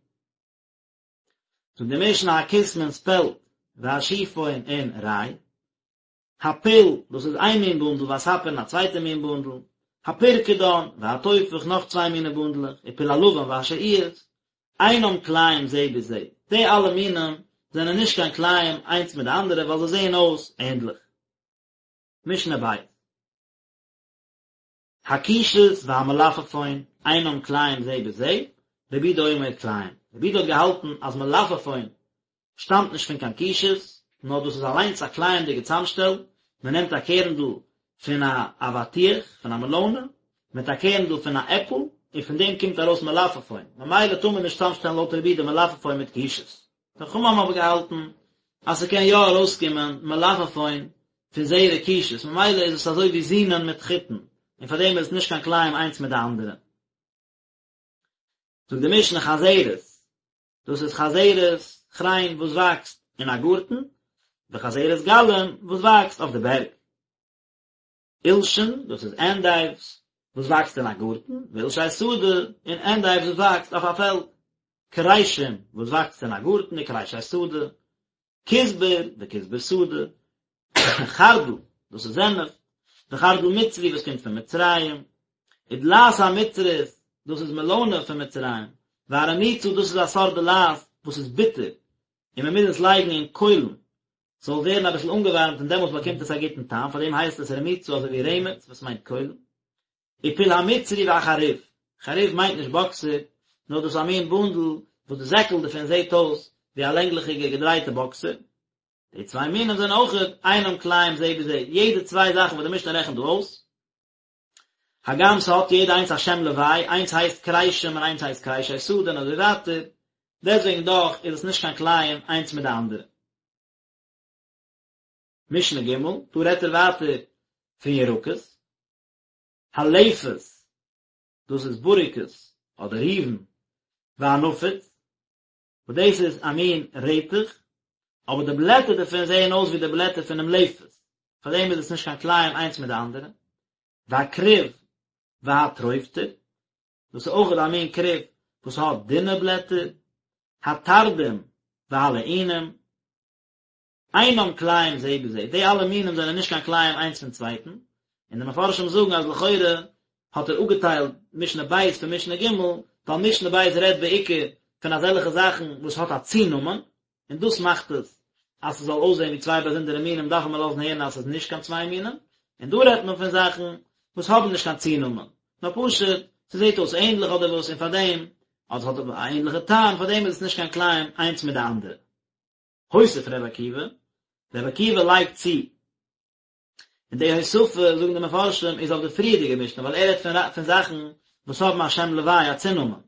זאגט די משנה הכוסמין ספעלט והשיפון און ריי, הפול, דאס איז איין מין בונדל, והספיר און א צווייטע מין בונדל, הפרקדן, והתופח, נאך צוויי מיני בונדלעך, ופול הלבן והשעועית, אינם כלאים זה בזה, די אלע מינים זענען נישט קיין כלאים איינס מיט די אנדערע ווייל זיי זעען אויס ענדליך. משנה ב'. הקישות והמלפפון אינם כלאים זה בזה, רבי יהודה אומר כלאים. רבי יהודה האט געהאלטן אז מלפפון שטאמט נישט פון קיין קישות, נאר דאס איז אליינס א כלאים'דיגע צאמשטעל, מען נעמט א קערנדל פון א אבטיח, פון א מעלאנע, מיט א קערנדל פון א עפל, און פון דעם קומט ארויס מלפפון, ממילא טאר מען נישט צאמשטעלן לויט רבי יהודה מלפפון מיט קישעס. די חכמים האבן אבער געהאלטן אז ס'קען יא ארויסקומען מלפפון פון זרע קישעס, ממילא איז עס אזוי ווי זונין מיט חיטין, און פאר דעם איז עס נישט קיין כלאים איינס מיט די אנדערע. זאגט די משנה חזרת, דאס איז חזרת כריין וואס וואקסט אין א גארטן, וחזרת גלים וואס וואקסט אויף די בערג. עולשין, דאס איז ענדייווס וואס וואקסט אין א גארטן, ועולשי שדה, און ענדייווס וואס וואקסט אויף א פעלד. כרישים וואס וואקסט אין א גארטן וכרישי שדה. כוסבר וכוסבר שדה. חרדל, דאס איז זענעף, וחרדל מצרי וואס קומט פון מצרים. ודלעת המצרית, דאס איז מעלאנע פון מצרים. והרמוצה, דאס איז א סארט דלעת וואס איז ביטער, און מען מוז עס לייגן אין קוילן ס'זאל ווערן אביסל אנגעווארעמט און דעמאלטס באקומט עס א גוטן טעם, פאר דעם הייסט עס רמוצה אזוי ווי רמץ וואס מיינט קוילן. ופול המצרי והחרוב, חרוב מיינט נישט באקסער, נאר דאס איז א מין בונדל וואס די זעקל דערפון זעט אויס ווי א לענגליכיגע געדרייטע באקסער. די צוויי מינים זענען אויכעט אינם כלאים זה בזה, יעדע צוויי זאכן וואס די משנה רעכנט דא אויס, הגם ס'האט יעדע איינס א שם לוואי, איינס הייסט כרישים און איינס הייסט כרישי שדה און אזוי ווייטער, דעסטוועגן דאך איז עס נישט קיין כלאים איינס מיט די אנדערע. משנה ג', דא רעדט ער ווייטער פון ירקות, הלפת, דאס איז בוריקעס אדער ריבן, והנפוץ, וואס דאס איז א מין רעטעך, אבער די בלעטער דערפון זעען אויס ווי די בלעטער פונעם לפת, פארדעם איז עס נישט קיין כלאים איינס מיט די אנדערע. והכרוב והטרובטר, דאס איז אויך א מין כרוב וואס האט דינע בלעטער, התרדים והלעונים, אינם כלאים זה בזה, די אלע מינים זענען נישט קיין כלאים איינס פון צווייטן, און די מפרשים זאגן אז לכאורה האט ער אפגעטיילט משנה ב' פון משנה ג', ווייל משנה ב' רעדט בעיקר פון אזעלכע זאכן וואס האט א צונאמען, און דאס מאכט עס אז ס'זאל אויסזען ווי צוויי באזונדערע מינים דארף מען לאזן הערן אז ס'איז נישט קיין צוויי מינים, און דא רעדט מען פון זאכן וואס האבן נישט קיין צונאמען, נאר פשוט ס'זעט אויס ענדליך אדער וואס און פארדעם, אדער ס'האט א ענדליכע טעם, פארדעם איז עס נישט קיין כלאים איינס מיט די אנדערע. הוסיף ר' עקיבא, ר' עקיבא לייגט צו, און די הוספה, זאגן די מפרשים, איז אויף די פריערדיגע משנה, ווייל ער רעדט פון פון זאכן וואס האבן א שם לוואי, א צונאמען.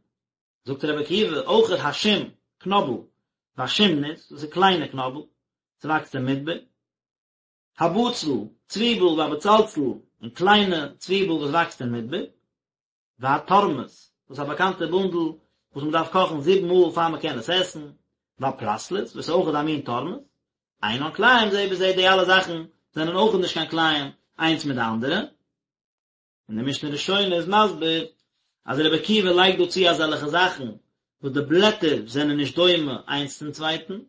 זאגט ר' עקיבא, אויכעט השום, קנאבל, והשומנית, דאס איז קליינע קנאבל, ס'וואקסט אין מדבר. הבצל, צוויבל, והבצלצול, און קליינע צוויבל וואס וואקסט אין מדבר. והתורמוס, דאס איז א באקאנטע בונדל וואס מען דארף קאכן זיבן מאל פאר מען קען עס עסן, והפרסלוס, וואס איז אויכעט א מין תורמוס, אינן כלאים זה בזה, די אלע זאכן זענען אויכעט נישט קיין כלאים איינס מיט די אנדערע. און די משנה ראשונה איז מסביר אז רבי עקיבא לייגט דא צו אזעלכע זאכן וואס די בלעטער זענען נישט דומה איינס צום צווייטן,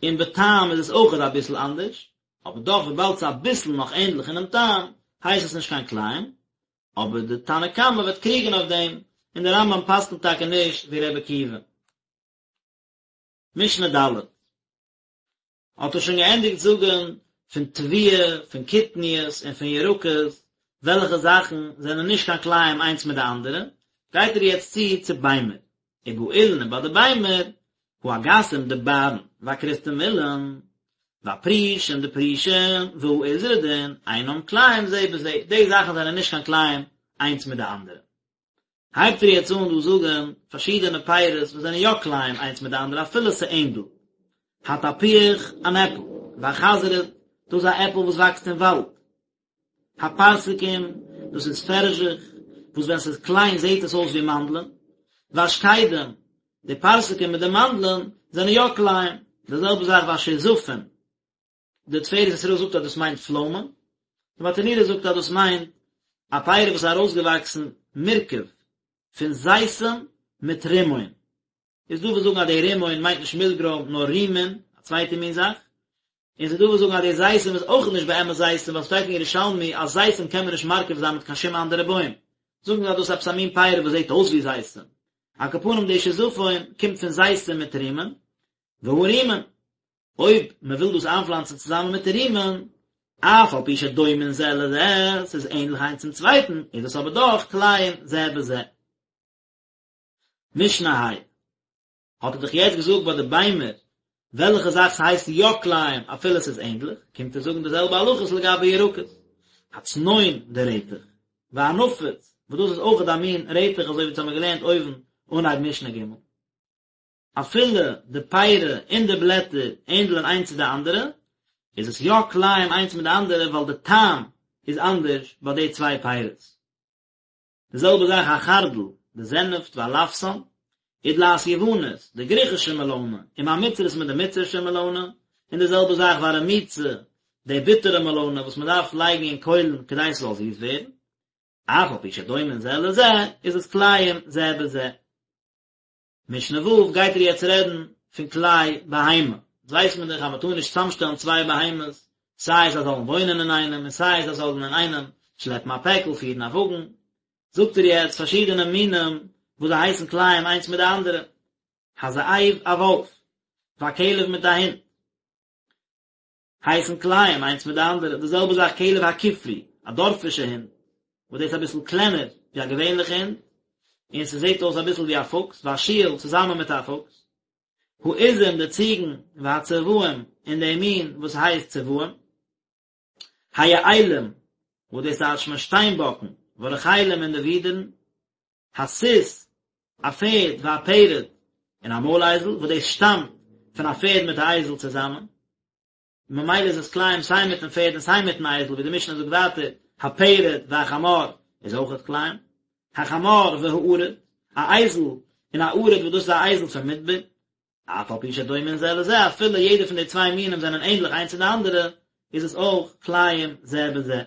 און בטעם איז עס אויכעט אביסל אנדערש, אבער דאך וויבאלד ס'איז אביסל נאך ענדליך אינעם טעם, הייסט עס נישט קיין כלאים, אבער די תנא קמא וועט קריגען אויף דעם, און די רמב"ם פסק'נט טאקע נישט ווי ר' עקיבא. משנה ד' האט ער שוין געענדיגט זאגען פון תבואה, פון קטניות און פון ירקות, וועלכע זאכן זענען נישט קיין כלאים איינס מיט די אנדערע, גייט ער יעצט צו צו ביימער, ובאילן און ביי די ביימער, האגסים די בארן, והכרוסתמילון, והפרושים די פרושים, והאיזרדין, אינם כלאים זה בזה, די זאכן זענען נישט קיין כלאים איינס מיט די אנדערע. הייבט ער יעצט אן דא זאגן פארשידענע פירות וואס זענען יא כלאים איינס מיט די אנדערע אפילו ס'ענדלט. התפוח, אן עפל, והחזרד, דאס איז א עפל וואס וואקסט אין וואלד. הפרסקים, דאס איז פערזשעך, וואס ווען ס'איז קליין זעט עס אויס ווי מאנדלען. והשקדים, די פרסקים מיט די מאנדלען זענען יא כלאים. די זעלבע זאך והשיזפין, די תפארת ישראל זאגט אז דאס מיינט פלוימען, די ברטנורא זאגט אז דאס מיינט א פרי וואס איז ארויסגעוואקסן מורכב פון זיתים מיט רימון. איז דא וואס זאגן אז די רימון מיינט נישט מילגרוים נאר רימין, א צווייטע מין זאך, און ס'איז דא וואס זאגן אז די זיתים איז אויך נישט באמת זיתים ווייל ס'שטייט אין ירושלמי אז זיתים קען מען נישט מרכיב זיין מיט קיין שום אנדערע בוים, זאגן זיי אז דאס איז עפעס א מין פרי וואס זעט אויס ווי זיתים. על כל פנים די שיזפון קומט פון זיתים מיט רימון, והרימון, אויב מען וויל דאס איינפלאנצן צוזאמען מיט רימון, אף על פי שדומין זה לזה, ס'איז ענדליך איינס צום צווייטן, איז עס אבער דאך כלאים זה בזה. משנה ה' האט ער דאך יעצט געזאגט ביי די ביימער וועלכע זאך ס'הייסט יא כלאים אפילו ס'איז ענדליך, קומט ער זאגן די זעלבע הלכות לגבי ירקות, הצנון די רעטעך, והנפוץ. וואס דאס איז אויכעט א מין רעטעך אזוי ווי אונז האמיר געלערנט אויבן אנהייב משנה ג'. אפילו די פירי און די בלעטער ענדלען איינס צו די אנדערע, איז עס יא כלאים איינס מיט די אנדערע ווייל די טעם איז אנדערש ביי די צוויי פירות. די זעלבע זאך החרדל, די זענעפט והלפסן, ודלעת יוונית, די גריכישע מעלאנע, עם המצרית מיט די מצרישע מעלאנע, און די זעלבע זאך והרמוצה, די ביטערע מעלאנע וואס מען דארף לייגן אין קוילן כדי ס'זאל זיס ווערן, אף על פי שדומין זה לזה, איז עס כלאים זה בזה. משנה ו' גייט ער יעצט רעדן פון כלאי בהמה, יעצט ווייסט מען דאך אז מען טאר נישט צוזאמשטעלן צוויי בהמות, סיי זיי זאלן וואוינען אינאיינעם און סיי זיי זאלן אינאיינעם שלעפן א פעקל, פירן א וואגן, זאגט ער יעצט פארשידענע מינים וואס זיי הייסן כלאים איינס מיט די אנדערע, הזאב א וואלף, והכלב מיט א הונט. הייסן כלאים איינס מיט די אנדערע, די זעלבע זאך כלב הכפרי, א דארפישע הונט, וואס דאס איז אביסל קלענער ווי א געווענליכע הונט, און ס'זעט אויס אביסל ווי א פוקס, והשועל צוזאמען מיט א פוקס, העזים די ציגן, והצבאים און די מין וואס הייסט צבאים, היעלים, וואס דאס טייטשט מען שטיינבאקן, והרחלים און די ווידערן, הסוס, א פערד, והפרד, און א מוילאייזל, וואס דאס שטאמט פון א פערד מיט א אייזל צוזאמען, ממילא איז עס כלאים סיי מיטן פערד און סיי מיטן אייזל, ווי די משנה זאגט ווייטער, הפרד והחמור איז אויכעט כלאים, החמור והערוד, א אייזל און א ערוד וואס דאס איז א אייזל פון מדבר, אף על פי שדומין זה לזה, אפילו יעדע פון די צוויי מינים זענען ענדליך איינס צו די אנדערע, איז עס אויך כלאים זה בזה.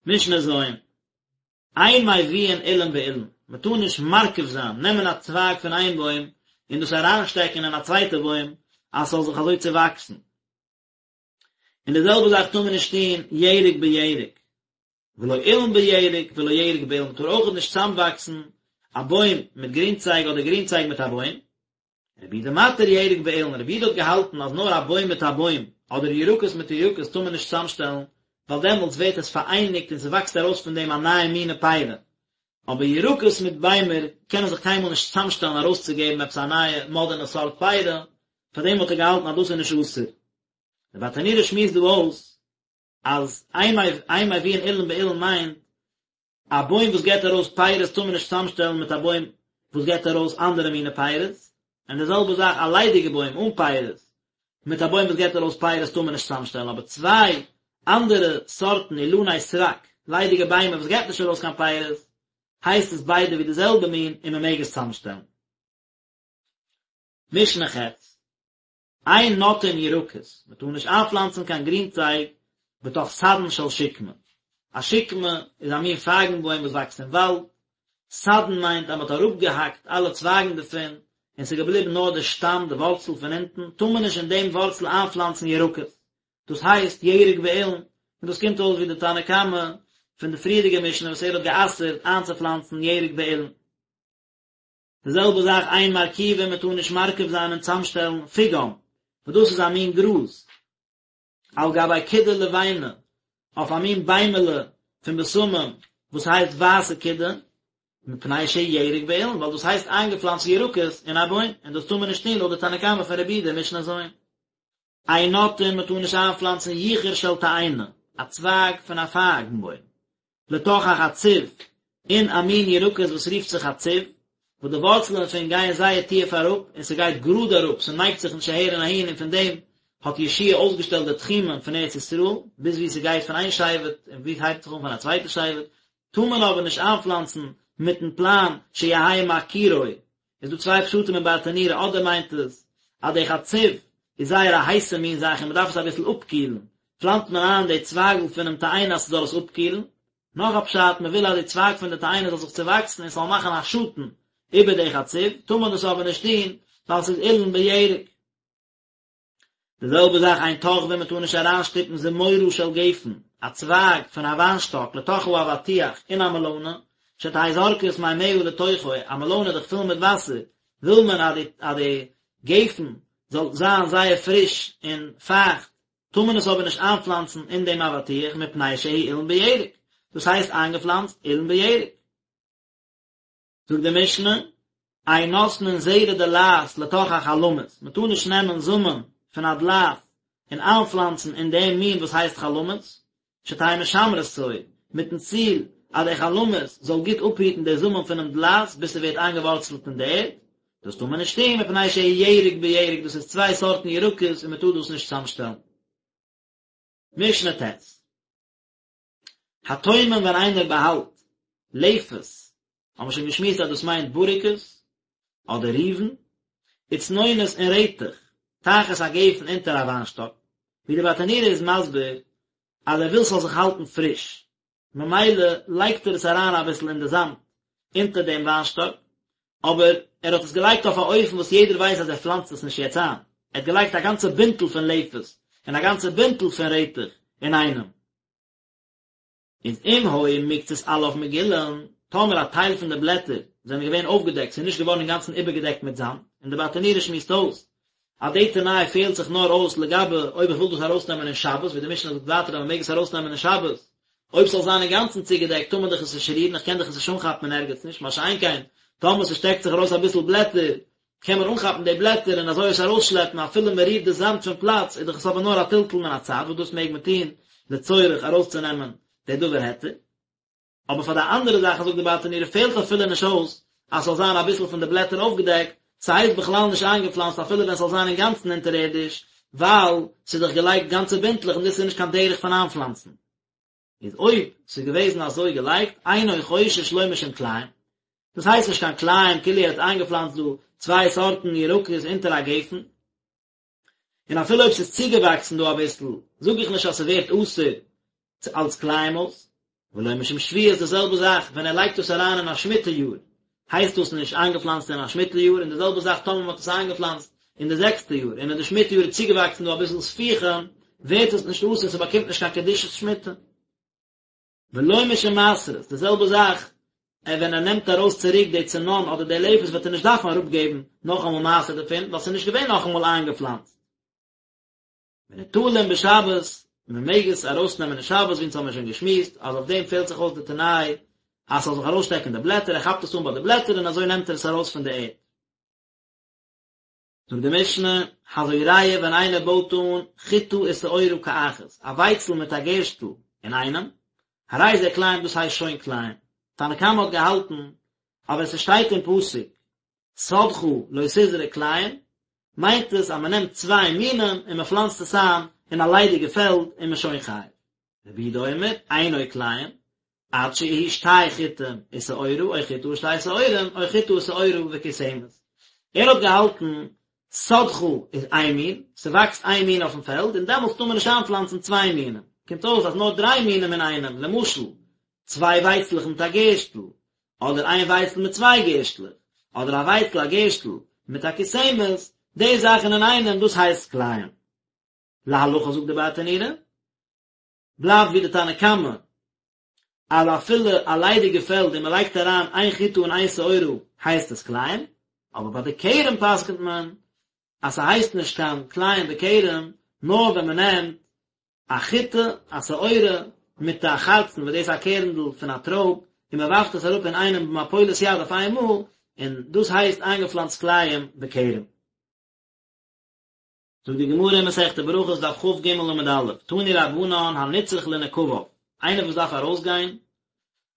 משנה ז', אין מביאין אילן באילן, מען טאר נישט מרכיב זיין, נעמען א צווייג פון איין בוים און דאס אריינשטעקן אין א צווייטע בוים אז ס'זאל זיך אזוי צעוואקסן. און די זעלבע זאך טאר מען נישט טון ירק בירק, ולא אילן בירק ולא ירק באילן, מען טאר אויך נישט צוזאמוואקסן א בוים מיט גרינצייג אדער גרינצייג מיט א בוים, רבי יהודה מתיר ירק באילן, רבי יהודה האט געהאלטן אז נאר א בוים מיט א בוים, אדער ירקות מיט ירקות טאר מען נישט צוזאמשטעלן, ווייל דעמאלטס ווערט עס פאראייניגט און ס'וואקסט ארויס פון דעם א נייע מינע פירה. אבער ירקות מיט ביימער קענען זיך קיינמאל נישט צוזאמשטעלן ארויסצוגעבן עפעס א נייע מאדערנע סארט פירה, פארדעם האט ער געהאלטן אז דאס איז נישט אסור. דער ברטנורא שמועסט דא אויס אז אין מביאין אילן באילן מיינט א בוים וואס געבט ארויס פירות טאר מען נישט צוזאמשטעלן מיט א בוים וואס געבט ארויס אנדערע מיני פירות, און די זעלבע זאך א ליידיגע בוים אן פירות מיט א בוים וואס געבט ארויס פירות טאר מען נישט צוזאמשטעלן, אבער צוויי אנדערע סארטן אילני סרק, ליידיגע ביימער וואס געבט נישט ארויס קיין פירות, הייסט עס ביידע ווי די זעלבע מין און מען מעג עס צוזאמשטעלן. משנה ח'. אין נוטעין ירקות, מען טאר נישט איינפלאנצן קיין גרינצייג בתוך סדן של שקמה, א שקמה איז א מין פייגן בוים וואס וואקסט אין וואלד, סדן מיינט אז מען האט אראפגעהאקט אלע צווייגן דערפון און ס'איז געבליבן נאר די שטאם, די ווארצל פון אונטן, טאר מען נישט אין דעם ווארצל איינפלאנצן ירקות, דאס הייסט ירק באילן, און דאס קומט אויס ווי די תנא קמא פון די פריערדיגע משנה וואס ער האט גע'אסר'ט איינצופלאנצן ירק באילן. די זעלבע זאך אין מרכיבין מען טאר נישט מרכיב זיין און צאמשטעלן פיגם, וואס דאס איז א מין גראז, על גבי קידה לבנה, אויף א מין ביימעלע פון בשמים וואס הייסט ווייסע קידה, מפני שהוא ירק באילן, ווייל דאס הייסט איינגעפלאנצט ירקות אין א בוים, און דאס טאר מען נישט טון לויט די תנא קמא פון רבי יהודה משנה ז'. אין נוטעין מען טאר נישט איינפלאנצן יחור של תאנה, א צווייג פון א פייגן בוים, לתוך החצוב, אין א מין ירקות וואס רופט זיך חצוב, וואס די ווארצלען דערפון גייען זייער טיעף אראפ, און ס'גייט גראד אראפ, ס'נייגט זיך נישט אהער און אהין, און פון דעם האט יהושע אויסגעשטעלט די תחומים פון ארץ ישראל, ביז וואו ס'גייט פון איין שבט און וואו ס'הייבט זיך אן פון א צווייטע שבט, טאר מען אבער נישט איינפלאנצן מיטן פלאן שיהא מקירו, איז דא צוויי פשטים אין ברטנורא אדער מיינט עס אז די חצוב איז זייער א הייסע מין זאך און מען דארף עס אביסל אפקילן, פלאנצט מען איין די צווייגל פונעם תאנה אז ס'זאל עס אפקילן, נאך א פשט מען וויל אז די צווייג פון די תאנה זאל זיך צווואקסן און ס'זאל מאכן א שאטן איבער די חצוב, טאר מען דאס אבער נישט טון ווייל ס'איז אילן בירק. די זעלבע זאך אין תוחבין מען טאר נישט אריינשטופן זמורה של גפן, א צווייג פון א וויינשטאק לתוך האבטיח אין א מעלאנע, שתהא זורקת מימיה לתוכו, א מעלאנע איז דאך פול מיט וואסער, וויל מען אז די אז די גפן זאל זיין זייער פריש און פייכט, טאר מען עס אבער נישט איינפלאנצן אין דעם אבטיח מפני שהוא אילן בירק, דאס הייסט איינגעפלאנצט אילן בירק. זאגט די משנה, אין נותנין זרע דלעת לתוך החלמית, מען טאר נישט נעמען זאמען פון א דלעת און איינפלאנצן אין דעם מין וואס הייסט חלמית, שתהא משמרתו, מיטן ציל אז די חלמית זאל גוט אפהיטן די זאמען פונעם דלעת ביז ס'ווערט איינגעווארצלט אין די ערד, דאס טאר מען נישט טון מפני שהוא ירק בירק, דאס איז צוויי סארטן ירקות און מען טאר דאס נישט צוזאמשטעלן. משנה ט'. הטומן ווען איינער באהאלט לפת, האבן מיר שוין געשמועסט אז דאס מיינט בוריקעס, אדער ריבן, וצנונות און רעטעך, תחת הגפן אונטער א וויינשטאק, ווי די ברטנורא איז מסביר אז ער וויל ס'זאל זיך האלטן פריש, ממילא לייגט ער עס אריין אביסל אין די זאמד אונטער דעם וויינשטאק, אבער ער האט עס געלייגט אויף א אופן וואס יעדער ווייסט אז ער פלאנצט עס נישט יעצט איין, ער האט געלייגט א גאנצע בינטל פון לפת און א גאנצע בינטל פון רעטעך אינאיינעם. איז אם היו מקצת עליו מגולין, טאמער א טייל פון די בלעטער זענען געווען אויפגעדעקט, ס'איז נישט געווארן אינגאנצן איבערגעדעקט מיט זאמד, און די ברטנורא שמועסט אויס אז די תנאי פעלט זיך נאר אויס לגבי אויב איך וויל דאס ארויסנעמען אין שבת, ווי די משנה זאגט ווייטער אז מ'מעג עס ארויסנעמען אין שבת, אויב ס'זאל זיין אינגאנצן צוגעדעקט טאר מען דאך עס נישט רירן, איך קען דאך עס נישט אנכאפן אין ערגעץ נישט, מה שאין כן טאמער ס'שטעקט זיך ארויס אביסל בלעטער, קען מען אנכאפן די בלעטער און אזוי עס ארויסשלעפן אפילו מען רירט די זאמד פון פלאץ איז דאך עס אבער נאר א טלטול מן הצד וואס דאס מעג מען טון לצורך ארויסצונעמען די דבר היתר. אבער פאר די אנדערע זאכן זאגט די ברטנורא פעלט אפילו נישט אויס אז ס'זאל זיין אביסל פון די בלעטער אויפגעדעקט, ס'הייסט בכלל נישט איינגעפלאנצט אפילו ווען ס'זאל זיין אינגאנצן אונטערערדיש, ווייל ס'איז דאך געלייגט גאנצע בינטלעך און דאס איז נישט קיין דרך פון איינפלאנצן. איז אויב ס'איז געוועזן אזוי געלייגט, אינו חושש לא משום כלאים, דאס הייסט נישט קיין כלאים כאילו ער האט איינגעפלאנצט דא צוויי סארטן ירקות אונטער א גפן, און אפילו אויב ס'איז צוגעוואקסן דא אביסל, זאג איך נישט אז ס'ווערט אסור אלס כלאים אויס. ולא משום שביעית די זעלבע זאך ווען ער לייגט דאס אריין אין א שמיטה יאר, הייסט דאס נישט איינגעפלאנצט אין א שמיטה יאר, און די זעלבע זאך טאמער מ'האט עס איינגעפלאנצט אין די זעקסטע יאר, און אין די שמיטה יאר איז צוגעוואקסן דא אביסל ספיחים, ווערט עס נישט אסור, ס'באקומט נישט קיין קדושת שמיטה. ולא משום מעשרות, די זעלבע זאך ווען ער נעמט ארויס צוריק די צנון אדער די לפת וועט ער נישט דארפן אראפגעבן נאכאמאל מעשר דערפון ווייל ס'איז נישט געווען נאכאמאל איינגעפלאנצט. וניטלין בשבת, מען מעג עס ארויסנעמען אין שבת ווי אונז האמיר שוין געשמועסט אז אויף דעם פעלט זיך אויס די תנאי אז ס'זאל זיך ארויסשטעקן די בלעטער, ער כאפט עס אן ביי די בלעטער און אזוי נעמט ער עס ארויס פון די ערד. זאגט די משנה, הזורע ווען איינער בויט אן חיטה ושעורה כאחת, א ווייצל מיט א גערשטל אינאיינעם, הרי זה כלאים דאס הייסט שוין כלאים. תנא קמא האט געהאלטן אז ווען ס'שטייט אין פסוק שדך לא תזרע כלאים, מיינט עס אז מ'נעמט צוויי מינים און מ'פלאנצט עס איין אין א ליידיגע פעלד און מ'איז שוין חייב. רבי יהודה אומר, אינו כלאים, עד שיהי' שתי חיטים ושעורה או חיטה ושתי שעורים או חיטה ושעורה וכוסמת. ער האט געהאלטן שדך איז איין מין, ס'וואקסט איין מין אויפן פעלד און דעמאלטס טאר מען נישט איינפלאנצן צוויי מינים. קומט אויס אז נאר דריי מינים אינאיינעם, למשל, צוויי ווייצלעך מיט א גערשטל, אדער איין ווייצל מיט צוויי גערשטלעך, אדער א ווייצל א גערשטל מיט א כוסמת, די זאכן אינאיינעם דאס הייסט כלאים. להלכה זאגט די ברטנורא, בלייבט ווי די תנא קמא אז אפילו א ליידיגע פעלד און מען לייגט אריין איין חיטה און איין שעורה הייסט עס כלאים, אבער ביי די כרם פסק'נט מען אז ס'הייסט נישט קיין כלאים בכרם נאר ווען מען נעמט א חיטה, א שעורה, מיט א חרצן וואס דאס איז א קערנדל פון א טרויב, און מען ווארפט עס אראפ אינאיינעם במפולת יד אויף איין מאל, און דאס הייסט איינגעפלאנצט כלאים בכרם. זאגט די גמרא אין מסכת ברכות דף כג עמוד א', תנו רבנן הנצרך לנקביו, איינער וואס דארף ארויסגיין,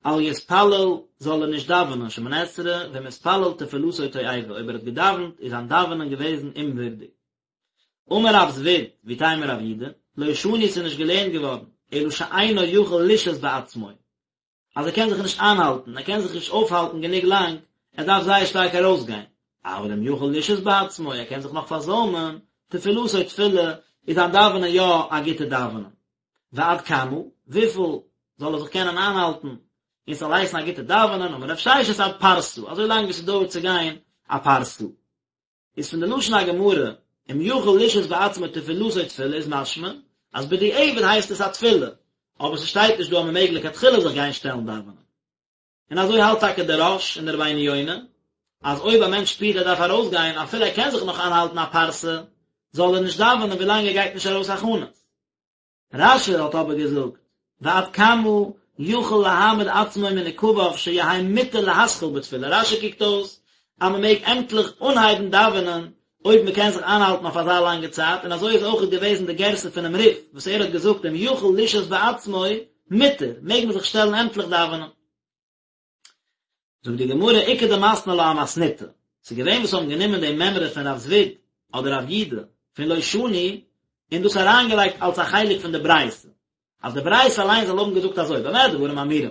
אל יתפלל זאל ער נישט דאווענען שמונה עשרה, ואם התפלל תפילתו תועבה, אויב ער האט געדאווענט איז זיין דאווענען געוועזן אומווירדיג. אמר רב זביד, ואיתימא רב יהודה, לא שנו ס'איז נישט געלערנט געווארן, אלא שאינו יכול לשהות בעצמו, אז ער קען זיך נישט איינהאלטן, ער קען זיך נישט אויפהאלטן גענוג לאנג, ער דארף זייער שטארק ארויסגיין. אבל אם יכול לשהות בעצמו, ער קען זיך נאך פארזוימען, תפילתו תפילה, איז זיין דאווענען יא א גוטע דאווענען. ועד כמה, וויפיל זאל ער זיך קענען איינהאלטן, און ס'זאל הייסן א גוטע דאווענען, אמר רב ששת עד פרסה, אזוי לאנג ווי ס'דויערט צו גיין א פרסה. איז פון די לשון הגמרא, אם יכול לשהות בעצמו תפילתו תפילה איז משמע אז בדיעבד הייסט עס א תפילה, אבער ס'שטייט נישט דא אז מ'מעג לכתחילה זיך גיין שטעלן דאווענען. און אזוי האלט טאקע דער רא"ש און דער רבינו יונה, אז אויב א מענטש שפירט ער דארף ארויסגיין אפילו ער קען זיך נאך איינהאלטן א פרסה, זאל ער נישט דאווענען ווילאנג ער גייט נישט ארויס הכנות. רש"י האט אבער געזאגט, ועד כמה יכול להעמיד עצמו מנקביו שיהא מותר להתחיל בתפילה, רש"י קוקט אויס אז מען מעג עמטליך אנהייבן דאווענען אויב מען קען זיך איינהאלטן אויף אזא לאנגע צייט, און אזוי איז אויכעט געוועזן די גירסא פונעם רי"ף וואס ער האט געזאגט אם יכול לשהות בעצמו מותר, מעג מען זיך שטעלן עמטליך דאווענען. זאגט די גמרא איכא דמתני לה אמתניתא, ס'איז געווען וואס האבן גענומען די מימרא פון רב זביד אדער רב יודא פון לא שנו און דאס אריינגעלייגט אלס א חלק פון די ברייתא, אז די ברייתא אליין זאל האבן געזאגט אזוי במה דברים אמורים,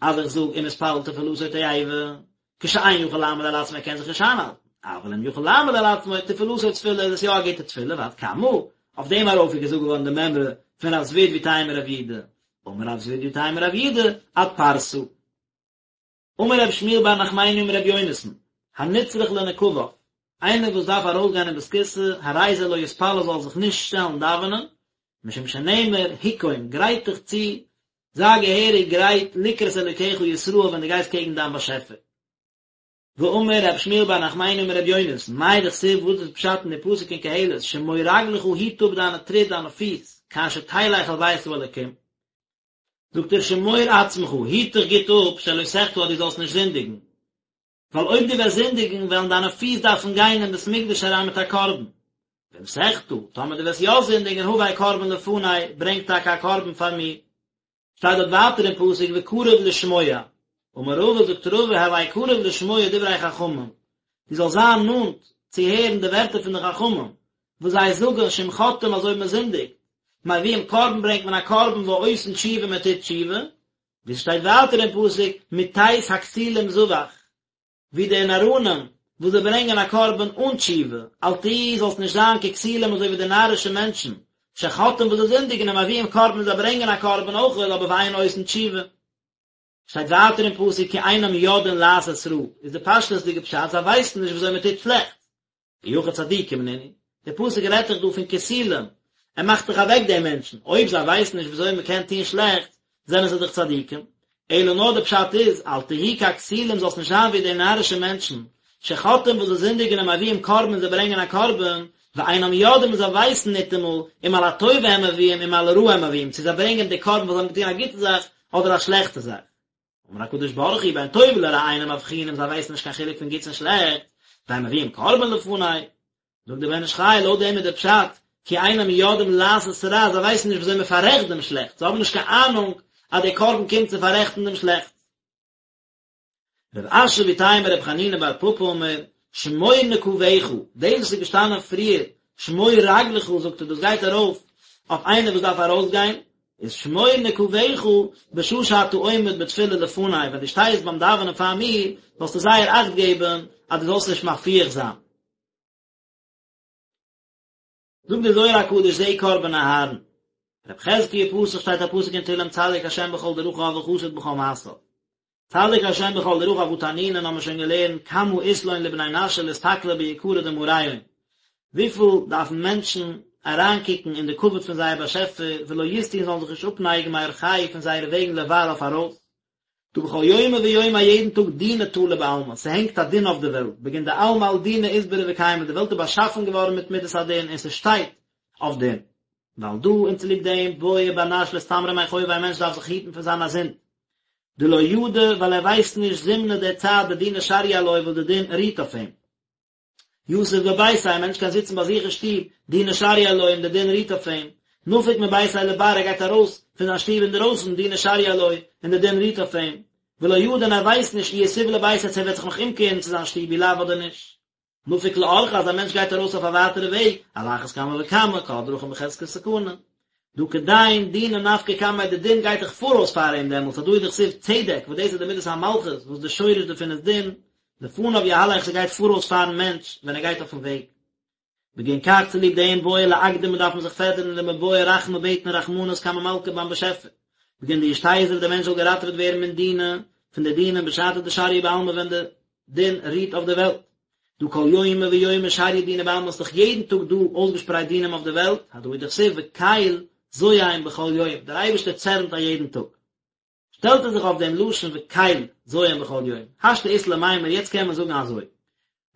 אז איך זאג אם התפלל תפלתו תועבה, כשאין יכול לעמוד על עצמו ער קען זיך נישט איינהאלטן, אבל אם יכול לעמוד על עצמו תפלתו תפילה איז עס יא א גוטע תפילה ועד כמה, אויף דעם ארויף איז געזאגט געווארן די מימרא פון רב זביד ואיתימא רב יודא, אמר רב זביד ואיתימא רב יודא עד פרסה. אמר רבי שמואל בר נחמני אמר רבי יונתן, הנצרך לנקביו, איינער וואס דארף ארויסגיין אין בית הכסא, הרי זה לא יתפלל זאל זיך נישט שטעלן דאווענען, משום שנאמר, היכון, גרייט דיך צו, זיי געהעריג גרייט לקראת אלוקיך ישראל ווען דו גייסט קעגן דיין באשעפער. ואמר רבי שמואל בר נחמני אמר רבי יונתן, מאי דכתיב וואס איז פשט אין די פסוק אין קהלת, שמור רגלך היט אפ דיינע טריט דיינע פיס, כאשר תלך אל בית האלוקים. זאגט ער שמור עצמך, היט דיך גוט אפ, שלא תחטא אז דו זאלסט נישט זינדיגן, ווייל אויב דו וועסט זינדיגן וועלן דיינע פיס דארפן גיין אין בית מקדש אריין מיט א קרבן, ואם תחטא, טאמער דו וועסט יא זינדיגן הבא קרבן לפני, ברענג טאקע א קרבן פאר מיר. שטייט דארט ווייטער אין פסוק וקרוב לשמוע, אמר רבא זאגט רבא הוי קרוב לשמוע דברי חכמים, דו זאלסט זיין נאנט צו הערן די ווערטער פון די חכמים, וואס זיי זאגן שאם חוטאים אז אויב מען זינדיגט, מביאים קרבן ברענגט מען א קרבן ועושין תשובה מען טוט תשובה, ווי ס'שטייט ווייטער אין פסוק מתת הכסילים זבח, ווי די נאראנים וואס זיי ברענגען א קרבן אן תשובה, אל תהי זאלסט נישט זיין ככסילים אזוי ווי די נארישע מענטשן, שחוטאים וואס זיי זינדיגן ומביאים קרבן און זיי ברענגען א קרבן אויך אבער ואין עושין תשובה. שטייט ווייטער אין פסוק כי אינם יודעים לעשות רע, איז די פשטות'דיגע פשט זיי ווייסן נישט ווי אזוי מען טוט שלעכטס, אי הכי צדיקים נינהו, דער פסוק רעדט דאך דא פון כסילים, ער מאכט דאך אוועק די מענטשן, אויב זיי ווייסן נישט ווי אזוי מען קען טון שלעכטס, זענען זיי דאך צדיקים, אלא נאר די פשט איז, אל תהי ככסילים זאלסט נישט זיין ווי די נארישע מענטשן, שחוטאים וואס זיי זינדיגן ומביאים קרבן און זיי ברענגען א קרבן, ואינם יודעים און זיי ווייסן ניטאמאל, אם על הטובה הם מביאים אם על הרעה הם מביאים, צו זיי ברענגען די קרבן ווייל זיי האבן געטון א גוטע זאך אדער א שלעכטע זאך. אמר הקדוש ברוך הוא בין טוב לרע אינם מבחינים זיי ווייסן נישט קיין חילוק פון גוטס און שלעכטס, והם מביאים קרבן לפני. זאגט דער בן איש חי לויט דעם איז דער פשט כי אינם יודעים לעשות רע זיי ווייסן נישט ווי אזוי מען פאררעכט דעם שלעכטס, זיי האבן נישט קיין אהנונג אז דער קרבן קומט צו פאררעכטן דעם שלעכטס. רב אשי ואיתימא רב חנינא בר פפא אמר, שמור נקביך, דאס וואס איז געשטאנען פריער, שמור רגלך זאגט ער דאס גייט ארויף אויף איינער וואס דארף ארויסגיין, איז שמור נקביך בשעה שאתה עומד בתפילה לפני, ווען דו שטייסט ביים דאווענען פאר מיר, זאלסטו זייער אכט געבן אז דו זאלסט נישט מפיח זיין. זאגט דער זוהר הקדוש זה קרבן אהרן. רב חזקיה פתח שטייט א פסוק אין תהלים צדיק השם בכל דרכיו וחסיד בכל מעשיו. צדיק השם בכל דרכיו הא תנינן האבן מיר שוין געלערנט כמה אית לון לבני נשא לאסתכלא ביקרא דמאריהון וויפיל דארפן מענטשן אריינקוקן אין די כבוד פון זייער באשעפער ולא יסטו און זאלן זיך נישט אפנייגן מאורחייהו פון זייערע וועגן לבר אויף ארויס דהא בכל יומא ויומא א יעדן טאג דינא תלא בעלמא, ס'הענגט א דין אויף די וועלט, בגין דעלמא על דינא אתברי וקיימא, די וועלט איז באשאפן געווארן מיט מידת הדין און ס'שטייט אויף דין. ועל דא און צוליב דעם בעי בר נש לאסתמרא מחובוי א מענטש דארף זיך היטן פון זיין א זינד. דלא ידע ווייל ער ווייסט נישט זמנא די צייט דדינא שריא עלוי וואס די דין רוהט אויף אים. יתיב בביתיה, א מענטש קען זיצן ביי זיך אין שטוב, דינא שריא עלוי און די דין רוהט אויף אים. נפיק מביתיה לבר, ער גייט ארויס פון זיין שטוב אינדערויסן, דינא שריא עלוי און די דין רוהט אויף אים. ולא ידע און ער ווייסט נישט אי יתיב לביתיה צו ער וועט זיך נאך אומקערן צו זיין שטוב אי לאו אדער נישט. נפיק לאורחא אז א מענטש גייט ארויס אויף א ווייטערע וועג, על אחת כמה וכמה, כל הדרכים בחזקת סכנה. דהא כדין דינא נפקא קמיה די דין גייט דאך פאראויס פאר אים דעמאלטס הדא הוא דכתיב צדק וואס דאס איז די מידת המלכות וואס די שורש דערפון איז דין, לפניו יהלך ס'גייט פאראויס פארן מענטש ווען ער גייט אויפן וועג. בגין כך צוליב דעם בעי לאקדמא דארף מען זיך פעדערן למיבעי רחמי בעטן רחמנות קמי מלכא ביים באשעפער. בגין דישתזיב דער מענטש זאל געראטעוועט ווערן מן דינא, פון די דינים בשעתא דשריא בעלמא ווען די דין רוהט אויף די וועלט. דהא כל יומא ויומא שריא דינא בעלמא ס'איז דאך יעדן טאג דא אויסגעשפרייט דינים אויף די וועלט, הדא הוא דכתיב וקל זועם בכל יום, דער אייבערשטער צערנט א יעדן טאג. שטעלט ער זיך אויף דעם לשון וקל זועם בכל יום. השתא אית למימר, יעצט קען מען זאגן אזוי.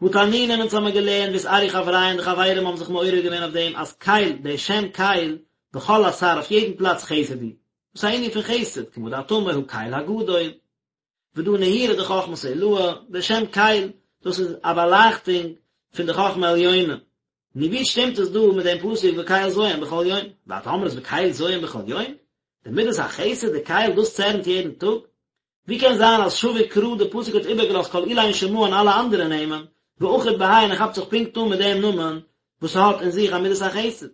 הא תנינן אונז האמיר געלערנט ואתערו חברייא די חברים האבן זיך מעורר געווען אויף דעם אז קל, דער שם קל, בכל אתר אויף יעדן פלאץ חסד הוא. דאס איז א ענין פון חסד, כמה דאת אמר הקל הגדול. ודא נהירו דחכמתא עילאה, דער שם קל, דאס איז א באלייכטונג פון די חכמה עליונה. נו ווי שטימט עס דא מיט דעם פסוק וקל זועם בכל יום? ואת אמרת וקל זועם בכל יום? די מידת החסד, די קל, דאס צערנט יעדן טאג? ווי קען זיין אז שביק קרא די פסוק האט איבערגעלאזט כל אלין שמהן און אלע אנדערע נעמען, ואחיד בהאי און ער כאפט זיך פונקט אן מיט דעם נאמען וואס האט אין זיך א מידת החסד.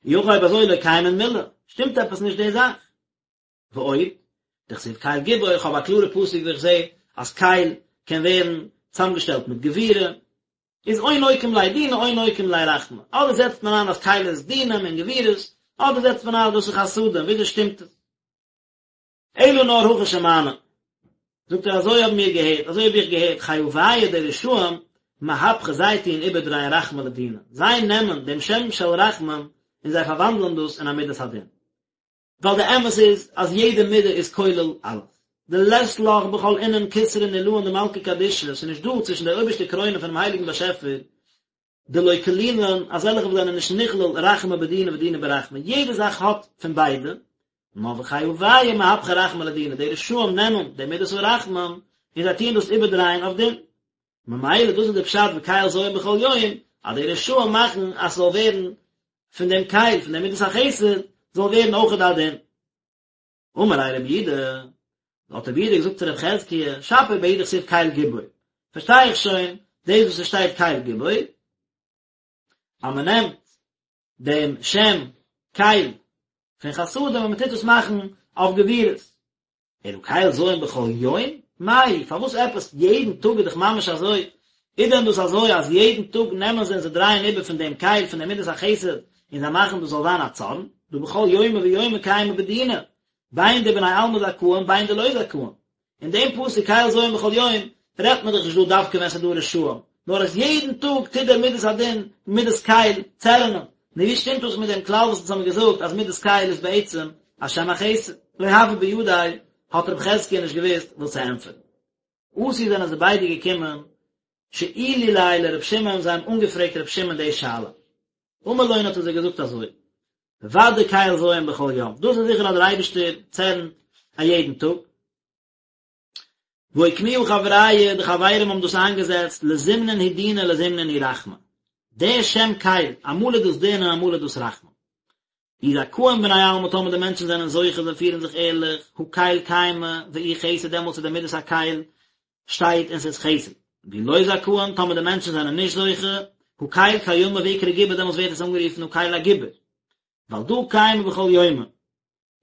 אי הכי אויב אזוי לא קיימין מילי, שטימט עפעס נישט די זאך. ועוד, דכתיב קל גיבור, איך האב א קלארע פסוק ווי איך זעה אז קל קען ווערן צוזאמגעשטעלט מיט גבורה, איז או נוקים ליה דינא או נוקים ליה רחמי, אדער זעצט מען איין אז קל איז דינים און גבורות, אדער זעצט מען איין אז דאס איז חסדים, וויאזוי שטימט עס? אלא נאר הכי שמענא, זאגט ער אזוי האבן מיר געהערט, אזוי האב איך געהערט, חייביא די רשעים מהפכי זיי טוען איבערדרייען רחמי לדינא, זיי נעמען דעם שם של רחמים און זיי פארוואנדלען דאס אין א מידת הדין. ווייל די אמת איז אז יעדע מידה איז כולל אלעס. דלית לך בכל אינון כתרין עילאין דמלכא קדישא, ס'איז נישט דא צווישן די אויבערשטע קרוינען פונעם הייליגן באשעפער דלא כלילן אזעלכע וואס זענען נישט נכלל רחמי בדינא ודינא ברחמי, יעדע זאך האט פון ביידע, נאר וחייביא מהפכי רחמי לדינא, די רשעים נעמען די מידת הרחמים און זיי טוען דאס איבערדרייען אויף דין. ממילא דאס איז די פשט וקל זועם בכל יום, אז די רשעים מאכן אז ס'זאל ווערן פון דעם קל, פון דעם מידת החסד, זאל ווערן אויכעט א דין. אמר ליה רב יהודה, האט רב יהודה געזאגט צו רב חזקיה, שפיר בהאי דכתיב קל גיבור, פארשטיי איך שוין דאס וואס עס שטייט קל גיבור, אז מען נעמט דעם שם קל פון חסדים און מען טוט עס מאכן אויף גבורות. אלא קל זועם בכל יום? מאי, פארוואס עפעס יעדן טאג איז דאך ממש אזוי? איז דען דאס אזוי אז יעדן טאג נעמען זיי און זיי דרייען איבער פון דעם קל פון דעם מידת החסד און זיי מאכן דאס זאל זיין א צארן? דהא בכל יומא ויומא קיימא בדינא, בין דבני עלמא זכאין בין דלא זכאין. אין דעם פסוק קל זועם בכל יום רעדט מען דאך נישט דא דווקא ווען ס'איז דא רשעים, נאר אז יעדן טאג טוט דער מידת הדין, מידת קל, צערענען. נו ווי שטימט דאס מיט דעם כלל וואס אונז האבן געזאגט אז מידת קל איז בעצם א שם החסד? לא הוה בידיה, האט רב חזקיה נישט געוואוסט וואס צו ענטפערן. אתו זענען זיי ביידע געקומען, שאילו ליה לר' שמעון, זיי האבן אנגעפרעגט ר' שמעון די שאלה. אמר לון האט ער זיי געזאגט אזוי, ודאי קל זועם בכל יום, דאס איז זיכער אז דער אייבערשטער צערנט א יעדן טאג. ואוקמוה חברייא, די חברים האבן דאס איינגעזעצט, לזימנין הוא דינא לזימנין הוא רחמי. דער שם קל, אמאל איז דאס דין און אמאל איז דאס רחמים. אי זכאין בני עלמא טאמער די מענטשן זענען זוכה זיי פירן זיך ערליך, הא קל קיימא ואיהו חסד דעמאלטס איז די מידת הקל שטייט און ס'איז חסד. ואי לא זכאין טאמער די מענטשן זענען נישט זוכה, הא קל קיימא ואקרי גיבור דעמאלטס ווערט עס אנגערופן הא קל הגיבור. ועל דא קיימא בכל יומא.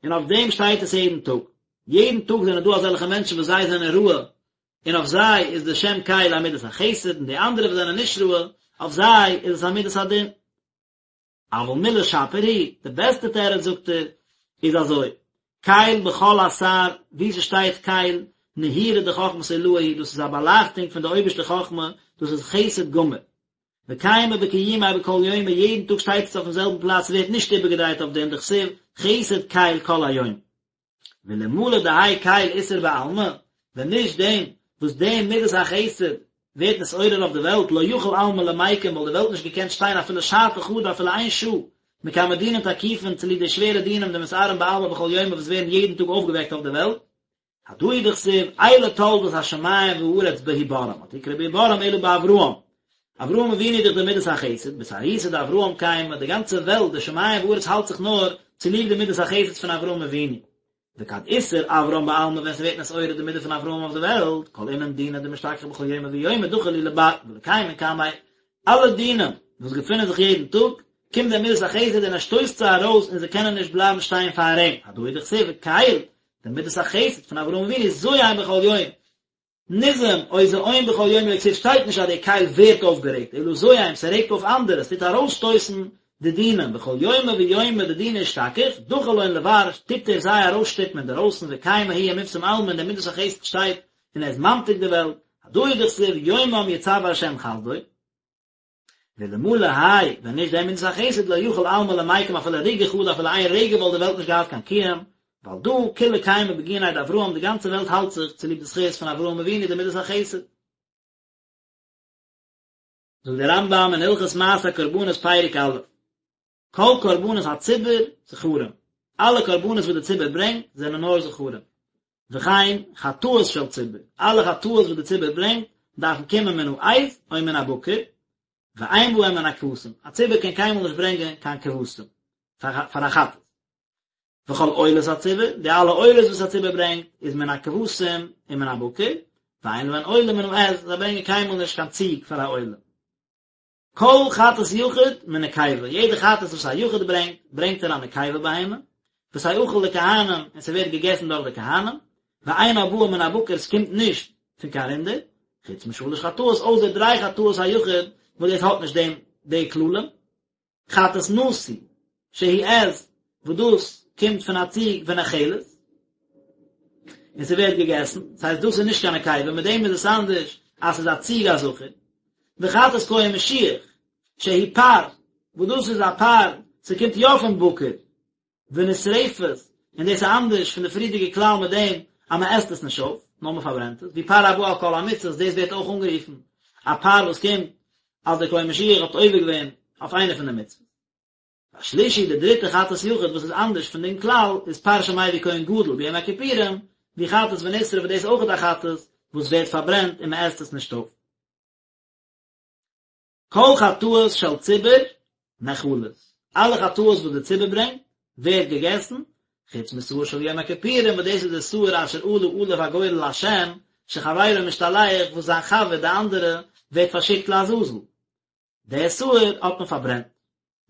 און אויף דעם שטייט עס יעדן טאג. יעדן טאג זענען דא אזעלכע מענטשן וואס זיי זענען ראוי, און אויף זיי איז די שם קל א מידת החסד, און די אנדערע וואס זענען נישט ראוי, אויף זיי איז עס א מידת הדין. אבל מילי שפיר היא, די בעסטע תירוץ זאגט ער, איז אזוי, קל בכל אתר, וואו ס'שטייט קל, נהירו דחכמתא עילאה הוא, דאס איז א באלייכטונג פון די אויבערשטע חכמה, דאס איז חסד גמור. וקיימא בקיומיה בכל יומא, יעדן טאג שטייט עס אויפן זעלבן פלאץ, ס'ווערט נישט איבערגעדרייט אויף דין, דכתיב, חסד קל כל היום. ואלמלא דהאי קל אתער בעלמא, ווען נישט דעם וואס די מידת החסד ווערט נתעורר אויף די וועלט, לא יכיל עלמא למיקם וואלט די וועלט נישט געקענט שטיין אפילו שעתא חדא אפילו איין שעה, מקמי דינין תקיפין צוליב די שווערע דינים דמתערין בעלמא בכל יומא וואס ווערן יעדן טאג אויפגעוועקט אויף די וועלט. הדא הוא דכתיב, אלה תולדות השמים והארץ בהבראם, אל תקרי בהבראם אלא באברהם. אברהם אבינו איז דאך די מידת החסד, באתערותא דאברהם קיימא, די גאנצע וועלט, די שמים וארץ האלט זיך נאר צוליב די מידת החסד פון אברהם אבינו. וכד אתער אברהם בעלמא ווען ס'ווערט נתעורר די מידה פון אברהם אויף די וועלט, כל אינון דינין דמשתכחי בכל יומא ויומא דחי להו לבר ולא קיימין קמיה, אלע דינים וואס געפינען זיך יעדן טאג, קומט די מידת החסד און ער שטויסט זיי ארויס און זיי קענען נישט בלייבן שטיין פאר אים, הדא הוא דכתיב וקל, די מידת החסד פון אברהם אבינו זועם בכל יום, נזעם או זעום בכל יום לא כתיב שטייט נישט אז דער קל ווערט אויפגערעגט, אלא זועם, ס'רעגט אויף אנדערע, ס'טוט ארויסשטויסן די דינים, בכל יומא ויומא דדינא אשתכח, דחי לון לבר, טוט ער זיי ארויסשטופן אינדערויסן, וקיימא הוא ומפסם עלמא און דער מידת החסד שטייט און ער איז ממתיק די וועלט, הדא הוא דכתיב יומם יצוה ה' חסדו. ואלמלא האי, ווען נישט דער מידת החסד לא יכיל עלמא למיקם אפילו רגעא חדא אפילו איין רגע וואלט די וועלט נישט געהאט קיין קיום, ועל דא כולא קיימא בגיניה דאברהם די גאנצע וועלט האלט זיך צוליב די זכות פון אברהם אבינו די מידת החסד. זאגט דער רמב"ם אין הלכות מעשה הקרבנות פרק א', כל קרבנות הציבור זכרים, אלע קרבנות וואס די ציבור ברענגט זענען נאר זכרים, וכן חטאות של ציבור, אלע חטאות וואס די ציבור ברענגט דארפן קומען מן העז או מן הבקר, ואין בהם מן הכבשים, א ציבור קען קיינמאל נישט ברענגען קיין כבשים פאר א חטאת. וכל עולות הציבור, די אלע עולות וואס א ציבור ברענגט, איז מן הכבשים ומן הבקר, ואין להן עולה מן העז, זיי ברענגען קיינמאל נישט קיין ציג פאר א עולה. כל חטאת יחיד מנקבה, יעדע חטאת וואס א יחיד ברענגט, ברענגט ער א נקבה בהמה, ותאכל לכהנים, און ס'ווערט געגעסן דורך די כהנים, ואינה באה מן הבקר, ס'קומט נישט פון קיין רינדער, חוץ משלש חטאות, אויסער דריי חטאות היחיד, וואס דאס האט נישט דעם די כללים. חטאת נשיא, שהיא עז, וואס דאס קומט פון א ציג ונאכלת, און ס'ווערט געגעסן, דאס הייסט דאס איז נישט קיין נקבה, מיט דעם איז עס אנדערש אז ס'איז א ציג א זכר. וחטאת כהן משיח, שהיא פר, וואס דאס איז א פר, ס'קומט יא פון בקר, ונשרפת, און דאס איז אנדערש פון די פריערדיגע כלל מיט דעם אז מען עסט עס נישט אויף, נאר מען פארברענט עס, והוא פר הבא על כל המצות, דאס ווערט אויך אנגערופן א פר וואס קומט אז דער כהן משיח האט עובר געווען אויף איינע פון די מצוות. והשלישי, די דריטע חטאת יחיד וואס איז אנדערש פון דעם כלל, איז פר שמביא כהן גדול ביום הכיפורים, והוא חטאת ונשרף וואס דאס איז אויך א חטאת וואס ווערט פארברענט און מען עסט עס נישט אויף. כל חטאות של ציבור נאכלות, אלע חטאות וואס די ציבור ברענגט, ווערט געגעסן, חוץ משעיר של יום הכיפורים, וואס דאס איז די שעיר אשר עלה עליו הגורל להשם, שחברו משתלח, וואס זיין חבר, די אנדערע, ווערט פארשיקט לעזאזל. די שעיר האט מען פארברענט.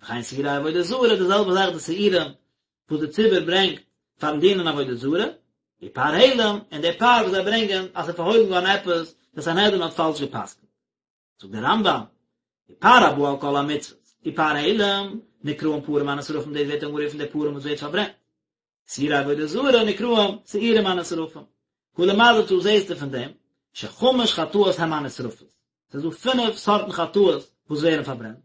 וכן שעירי עבודה זרה, די זעלבע זאך די שעירים וואס די ציבור ברענגט פארן דינען עבודה זרה, ופר העלם, און די פר וואס זיי ברענגען אז ס'איז פארהוילן געווארן עפעס, די סנהדרין האט פאלש גע'פסק'נט. זאגט דער רמב"ם, ופר הבא על כל המצוות, ופר העלם, נקראים פרים הנשרפים דאס ווערט אנגערופן די פרים וואס ווערט פארברענט. שעירי עבודה זרה נקראים שעירים הנשרפים. הא למדת זעהסטו פון דעם, שחמש חטאות הם הנשרפות. ס'איז דא פינף סארטן חטאות וואס ווערן פארברענט.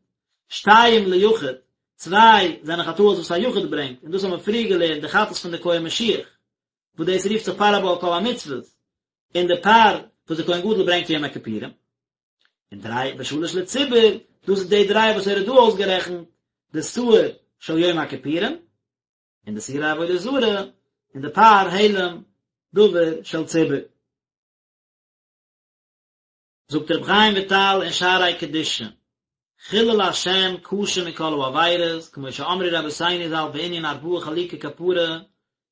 שתיים ליחיד, צוויי זענען חטאות וואס א יחיד ברענגט, און דאס האבן מיר פריער געלערנט די חטאת פון די כהן משיח, וואס דאס רופט זיך פר הבא על כל המצוות, און די פר וואס די כהן גדול ברענגט יום הכיפורים, און דריי ושלש לציבור, דאס איז די דריי וואס ער האט דא אויסגערעכנט, די שעיר של יום הכיפורים, און די שעירי עבודה זרה, און די פר העלם דבר של ציבור. זאגט רבי חיים וויטאל אין שערי קדושה, חילול השם קשה מכל העבירות, כמו שאמרו רבותינו ז"ל בענין ארבעה חלוקי כפרה,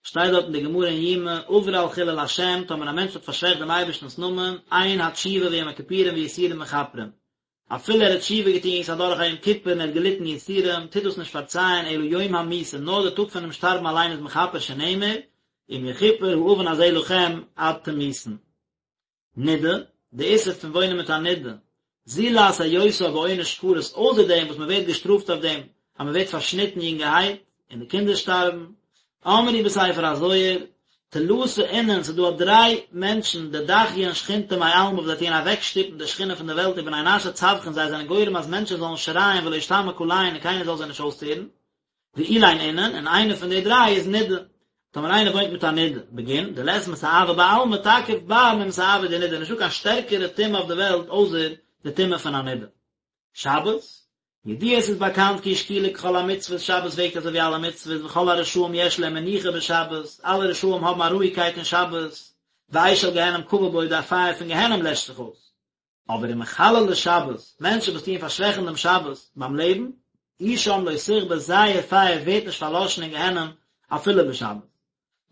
שטייט דארט אין די גמרא אין יומא, עבר על חילול השם, טאמער א מענטש האט פארשוועכט דעם אייבערשטנ'ס נאמען, אין התשובה ויום הכיפורים ויסורים מכפרים. אפילו ער האט תשובה געטון, ס'איז אדורך א יום כיפור און ער האט געליטן יסורים, טוט דאס נישט פארצייען אלא יום המיתה, נאר די טאג פונעם שטארבן אליין איז מכפר שנאמר, אם יכופר העון הזה לכם עד תמותון. נידה, די איסור פון וואוינען מיט א נידה, זולת היותה בעונש כרת, אויסער דעם וואס מען ווערט געשטראפט אויף דעם אז מען ווערט פארשניטן יונגערהייט און די קינדער שטארבן, אמרו בספר הזוהר, תלתא אינון, ס'איז דא א דריי מענטשן, דדחיין שכינתא מעלמא וואס זיי טוען אוועקשטופן די שכינה פון די וועלט ובני נשא צווחין זיי זענען גורם אז מענטשן זאלן שרייען ולא אשתמע קליהון און קיינער זאל זיי נישט אויסהערן, ואלין אינון, און איינע פון די דריי איז נידה. טאמער איינער וואוינט מיט א נידה, בגין דלית מסאבא בעלמא תקיף בר ממסאבא דנידה, נישטא קיין שטערקערע טומאה אויף די וועלט אויסער די טומאה פון א נידה. שבת, ידוע עס איז באקאנט כי שקולה ככל המצוות, שבת וועגט אזוי ווי אלע מצוות, וכל הרשעים יש להם מנוחה בשבת, אלע רשעים האבן א רואיגקייט אין שבת, ואש של גיהנם כבה בו, די פייער פון גיהנם לעשט זיך אויס. אבער ומחללי שבת, מענטשן וואס טוען פארשוועכן דעם שבת ביים לעבן, אשם לא תכבה, זייער פייער ווערט נישט פארלאשן אין גיהנום אפילו בשבת.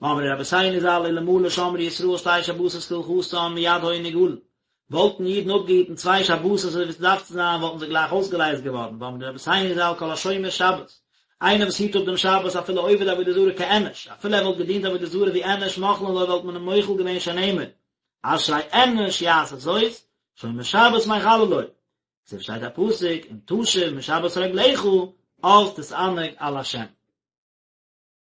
ואמרו רבותינו ז"ל אלמלא שמרו ישראל שתי שבתות כהלכתן מיד היו נגאלין, וואלטן אידן אפגעהיטן צוויי שבתות אזוי ווי עס דארף צו זיין וואלטן זיי גלייך אויסגעלייזט געווארן, ואמרו רבותינו ז"ל כל השומר שבת, איינער וואס היט אפ דעם שבת אפילו עובד עבודה זרה כאנוש, אפילו ער וואלט געדינט עבודה זרה ווי אנוש מוחלין לו וואלט מען אים מוחל געווען שנאמר, אשרי אנוש יעשה זאת, שומר שבת מחללו. אזוי שטייט א פסוק, אם תשיב משבת רגלך, אז תתענג על השם.